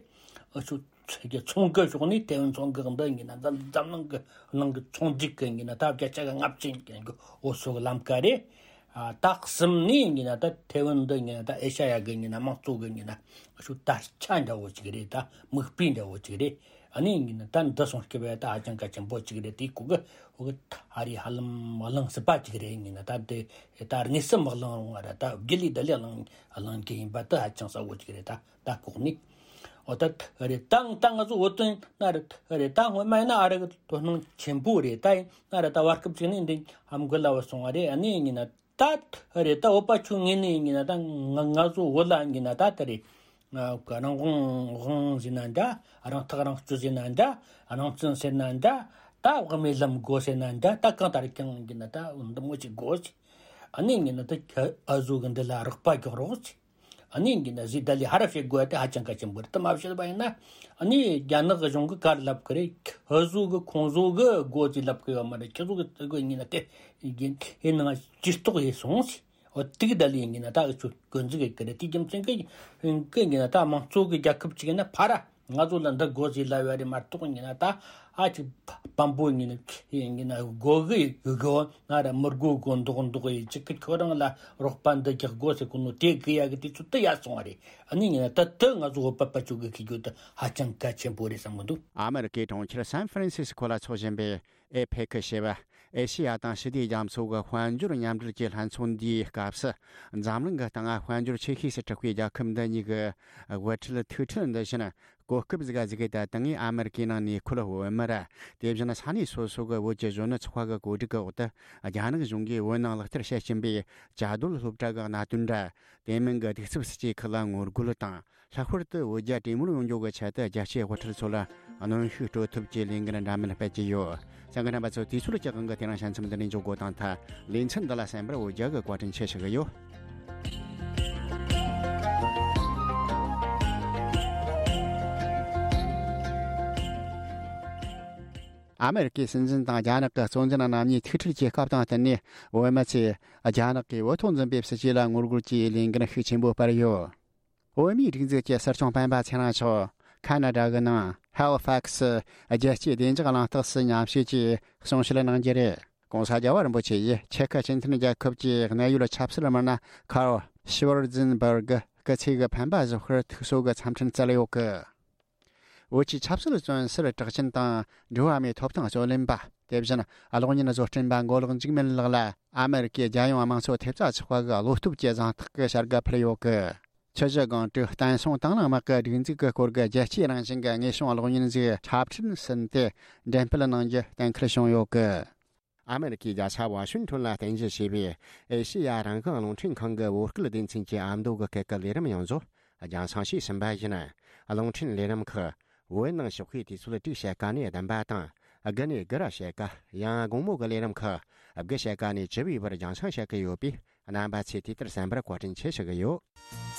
ཨུ་ཆོ་ཚོང་གི་ཕྱོགས་ནས་ཐའེ་ཝན་མཚོ་འགག་འདི་ཡིན་ན་འཛམ་འཛམ་གླིང་གི་ནང་གི་ཚོང་སྒྲིག་གི་ཡིན་ན་ད་བརྒྱ་ཆ་གི་ལྔ་བཅུ་ཡིན་གི་འོ་ཚོ་གི་ལམ་ཀ་རེད། ཨ་ད་གསུམ་ནས་ཡིན་ན་ད་ཐའེ་ཝན་འདི་ཡིན་ན་ད་ཨེ་ཤ་ཡ་གི་ཡིན་ན་དམངས་གཙོ་གི་ཡིན་ན་ཨུ་ཆོ་དར་ཆ་འདྲ་བོ་ཅིག་རེད། ད་མིག་དཔེ་འདྲ་བོ་ཅིག་རེད། ཨ་ནི་ཡིན་ན་ད་འདི་སོང་སྐྱེ་བའི་ད་ཧ་ཅང་གལ་ཆེན་པོ་ཅིག་རེད། དེའི་གོ་གི་འོ་གི་ད་ཨ་རི་ཧ་ལམ་གླེང་སྲིད་པ་ཅིག་རེད། ཡིན་ན་ད་དེ་ད་དངོས་སུ་མི་གླེང་རུང་བ་ར་ད་རྒྱུ་ལས་ད་ལས་གླེང་གླེང་གི་ཡིན་པ་ད་ཧ་ཅང་གསལ་བོ་ཅིག་རེད། ད་ད་ལྐོག་ནས་འོ་ད་རེད། ད་ད་ང་ཚོ་བོད་དོན་ན་རེད། རེད། ད་སྔོན་མ་ཡིན་ན་ཨ་རི་གི་དོ་སྣང་ཆེན་པོ་རེད། ད་ཡིན་ན་རེད། ད་བར་སྐབས་ཅིག་ནས་འདི་ཧམ་གི་ལ་བ་སོང་བ་རེད། ཨ་ནི་ཡིན་ན་ད་རེད། ད་བོད་པ་ཆོ་ངོས་ནས་ཡིན་ན་ད་ང་ང་ཚོ་བོད་ལ་ཡིན་ན་ད་ད་རེད། ང་རང་དབང་དབང་ཟེར་ན་འདྲ། རང་ཐག་རང་གཅོད་ཟེར་ན་འདྲ། རང་བཙན་ཟེར་ན་འདྲ། ད་དབུ་མའི་ལམ་དགོས་ཟེར་ན་འདྲ། ད་གང་ལྟར་ཀྱང་ཡིན་ན་ད་འདི་མོ་ཅིག་དགོས་ཟེར། ཨ་ནི་ཡིན་ན་ད་ཨ་ཟུ་གི་འདི་ལ་རོགས་པ་རྒྱག་རོགས་ཟེར། ཨ་ནི་ཡིན་ན་ཟི་ད་ལི་ཧ་ར་བྱེད་དགོས་ཏེ་ཧ་ཅང་གལ་ཆེན་པོ་རེད། དེ་མ་བྱེད་པ་ཡིན་ན་ཨ་ནི་རྒྱ་ནག་གཞུང་གི་གར་ལབ་གི་རེད། ཁོ་ཚོ་གི་ཁོང་ཚོ་གི་སྒོ་ཅིག་ལབ་གི་ཡོད་མ་རེད། ཁྱེད་ཚོ་གི་སྒོ་ཡིན་ན་དེ་ཡིན་ཡིན་ནང་ཇུས་གཏོགས་ཡིན་སོང་ཟེར། འོ་དེ་གི་ད་ལི་ཡིན་ན་ད་ཨུ་ཆོ་གོ་འཛུགས་གི་རེད། དེ་རྒྱུ་མཚན་གི་གི་ཡིན་ན་ད་དམངས་གཙོ་གི་རྒྱལ་ཁབ་ཅིག་ཡིན་ན་ཕ་ར་ང་ཚོ་ལ་འདི་དགོས་ཟེར་ལབ་ཡ་རེད་མ་གཏོགས་ཡིན་ན་ད་ཨ་ཅིག་བམ་པོ་ཡིན་ན་ཡིན་ན་དགོས་གི་ཡོད་གི་ན་ར་མི་དགོས་གོ་མདོག་མདོག་ཡིན་ཅིག་གི་ཁྱོད་རང་ལ་རོགས་པ་འདི་རྒྱག་དགོས་ཟེར་གོ་ནོ་དེ་གི་ཡ་གི་དུས་ཚོད་དུ་ཡ་སོང་བ་རེད། ཨ་ནི་ཡིན་ན་ད་དུ་ང་ཚོ་བོད་པ་པ་ཆོ་གི་ཤེས་རྒྱུ་དུ་ཧ་ཅང་གལ་ཆེན་པོ་རེད་བསམ་གི་འདུག། ཨ་མེ་རི་ཀའི་གྲོང་ཁྱེར་སན་ཧྥ་རན་སིས་ཀོ་ལ་འཚོགས་བཞིན་པའི་ཨེ་ཕེ་ཁི་ཞེས་པ། ཨེ་ཤེ་ཡ་དང་ཞི་བདེའི་རྒྱ་མཚོ་གི་དཔལ་འབྱོར་མཉམ་འབྲེལ་གྱི་ལྷན་ཚོགས་འདིའི་སྐབས་སུ། འཛམ་གླིང་གི་སྟེང་དཔལ་འབྱོར་ཆེ་ཤོས་སུ་གྲགས་པའི་རྒྱལ་ཁབ་འདི་གཉིས་ཀྱི་དབུ་ཁྲིད་ཐུག་འཕྲད་འདི་བཞིན་གོ་སྐབས་ཟིག་ག་ཟིག་གི་ད་ལྟ་ངས་ཨ་མེ་རི་ཀའི་ནང་ནས་ཁུལ་བོད་མི་ར། དེ་བཞིན་ས་གནས་སོ་སོ་གི་བོད་ཀྱི་གཞོན་ནུ་ཚོགས་པ་གི་གོ་སྒྲིག་གི་འོག་ཏུ་རྒྱ་ནག་གཞུང་གིས་བོད་ནང་ལག་བསྟར་བྱེད་བཞིན་པའི་བཅའ་སྡོད་སློབ་གྲྭ་གི་གནད་དོན་ར། དེ་མིན་གྱི་གདུག་རྩུབ་སྲིད་ཇུས་ཁག་ལ་ངོ་རྒོལ་དང་། ལྷག་པར་དུ་བོད་རྒྱ་གྲོས་མོལ་ཡོང་རྒྱུ་གི་ཆེད་དུ་རྒྱལ་སྤྱིའི་དབུ་ཁྲིད་ཚོ་ལ་གནོན་ཤུགས་སྤྲོད་ཐབས་ཀྱི་ལས་འགུལ་འདྲ་མིན་སྤེལ་གྱི་ཡོད། གསན་མཁན་རྣམ་པ་ཚོ། དུས་ཚོད་ཀྱི་དབང་གིས་དེ་རིང་ཞལ་མཚམས་འདི་ནས་འཇོག་དགོས་དང་ཐལ། ལེ་ཚན་འདི་ལ་གསན་པར་བོད་རྒྱ་གི་བཀའ་དྲིན་ཆེ་ཞུ་གི་ཡོད། ཨ་མེ་རི་ཀའི་སྲིད་འཛིན་དང་རྒྱ་ནག་གི་གཙོ་འཛིན་རྣམ་གཉིས་ཐུག་འཕྲད་ཀྱི་སྐབས་དང་བསྟུན་ནས། བོད་མི་ཚོས་རྒྱ་ནག་གིས་བོད་ཐོག་འཛིན་པའི་སྲིད་བྱུས་ལ་ངོ་རྒོལ་གྱིས་ལས་འགུལ་ཤུགས་ཆེན་པོ་སྤེལ་ཡོད། བོད་མིའི་སྒྲིག་འཛུགས་ཀྱི་སྲིད་སྐྱོང་སྤེན་པ་ཚེ་རིང་མཆོག་ཁ་ན་ཌ་གི་ནང་ཧེ་ལི་ཕེག་སི་རྒྱལ་སྤྱིའི་བདེ་འཇགས་གླེང་སྟེགས་སུ་མཉམ་ཞུགས་ཀྱིས་གསུང་བཤད་གནང་རྒྱུ་རེད། ྋགོང་ས་རྒྱལ་བ་རིན་པོ་ཆེ་ཡིས་ཆེ་ཁུ་སྤྱི་མཐུན་རྒྱལ་ཁབ་ཀྱི་གནད་ཡོད་ཆབ་སྲིད་མི་སྣ་ཁརལ་ཤི་ཝར་ཛིན་བར་གི་སྐུ་ཚེ་གི་འཕེན་པ་བཞག་པར་ཐུགས་གསོ་གི་འཚམས་འཕྲིན་བསྩལ་ཡོད་གི། བོད་ཀྱི་ཆབ་སྲིད་བཙོན་ཟུར་གྲགས་ཅན་དང་འགྲོ་བ་མིའི་ཐོབ་ཐང་རྩོད་ལེན་པ། དེ་བཞིན་གློག་བརྙན་བཟོ་སྐྲུན་པ་མགོ་ལོག་འཇིགས་མེད་ལགས་ལ་ཨ་མེ་རི་ཀའི་རྒྱལ་ཡོངས་དམངས་གཙོ་ཐེབས་རྩ་ཚོགས་པ་གི་བློ་སྟོབས་ཀྱི་གཟེངས་རྟགས་ཀྱི་བྱ་དགའ་ཕུལ་ཡོད་གི། ཆུ་བཞི་སྒང་དྲུག་བསྟན་སྲུང་དང་བླངས་དམག་གི་སྒྲིག་འཛུགས་ཀྱི་སྐོར་གྱི་རྒྱལ་སྤྱིའི་རང་བཞིན་གྱི་དངོས་བྱུང་གློག་བརྙན་ཞིག་འཁྲབ་ཁྲིད་ཟིན་ཏེ་འགྲེམས་སྤེལ་གནང་རྒྱུ་གཏན་འཁེལ་བྱུང་ཡོད་གི། ཨ་མེ་རི་ཀའི་རྒྱལ་ས་ཝ་ཤིང་ཊོན་ལ་རྟེན་གཞི་བྱས་པའི་ཨེ་ཤེ་ཡ་རང་དབང་རླུང་འཕྲིན་ཁང་གི་བོད་སྐད་སྡེ་ཚན་གྱི་ཨ་མདོ་གི་སྐད་ཀྱི་ལས་རིམ་ཡོངས་རྫོགས་རྒྱང་སྲིང་བྱས་ཟིན་པ་ཡིན། རླུང་འཕྲིན་ལས་རིམ་ཁག་བོད་ནང་ཞོགས་པའི་དུས་ཚོད་དྲུག་ཕྱེད་ཀ་ནས་བདུན་པ་དང་། དགུ་ནས་དགུ་ར་ཕྱེད་ཀ། ཡང་དགོང་མོ་གི་ལས་རིམ་ཁག་དགུ་ཕྱེད་ཀ་ནས་བཅུ་པའི་བར་རྒྱང་སྲིང་བྱེད་ཀྱི་ཡོད་པས། རྣམ་པ་ཚོས་དུས་ལྟར་གསན་པར་བཀའ་དྲིན་ཆེ་ཞུ་གི་ཡོད།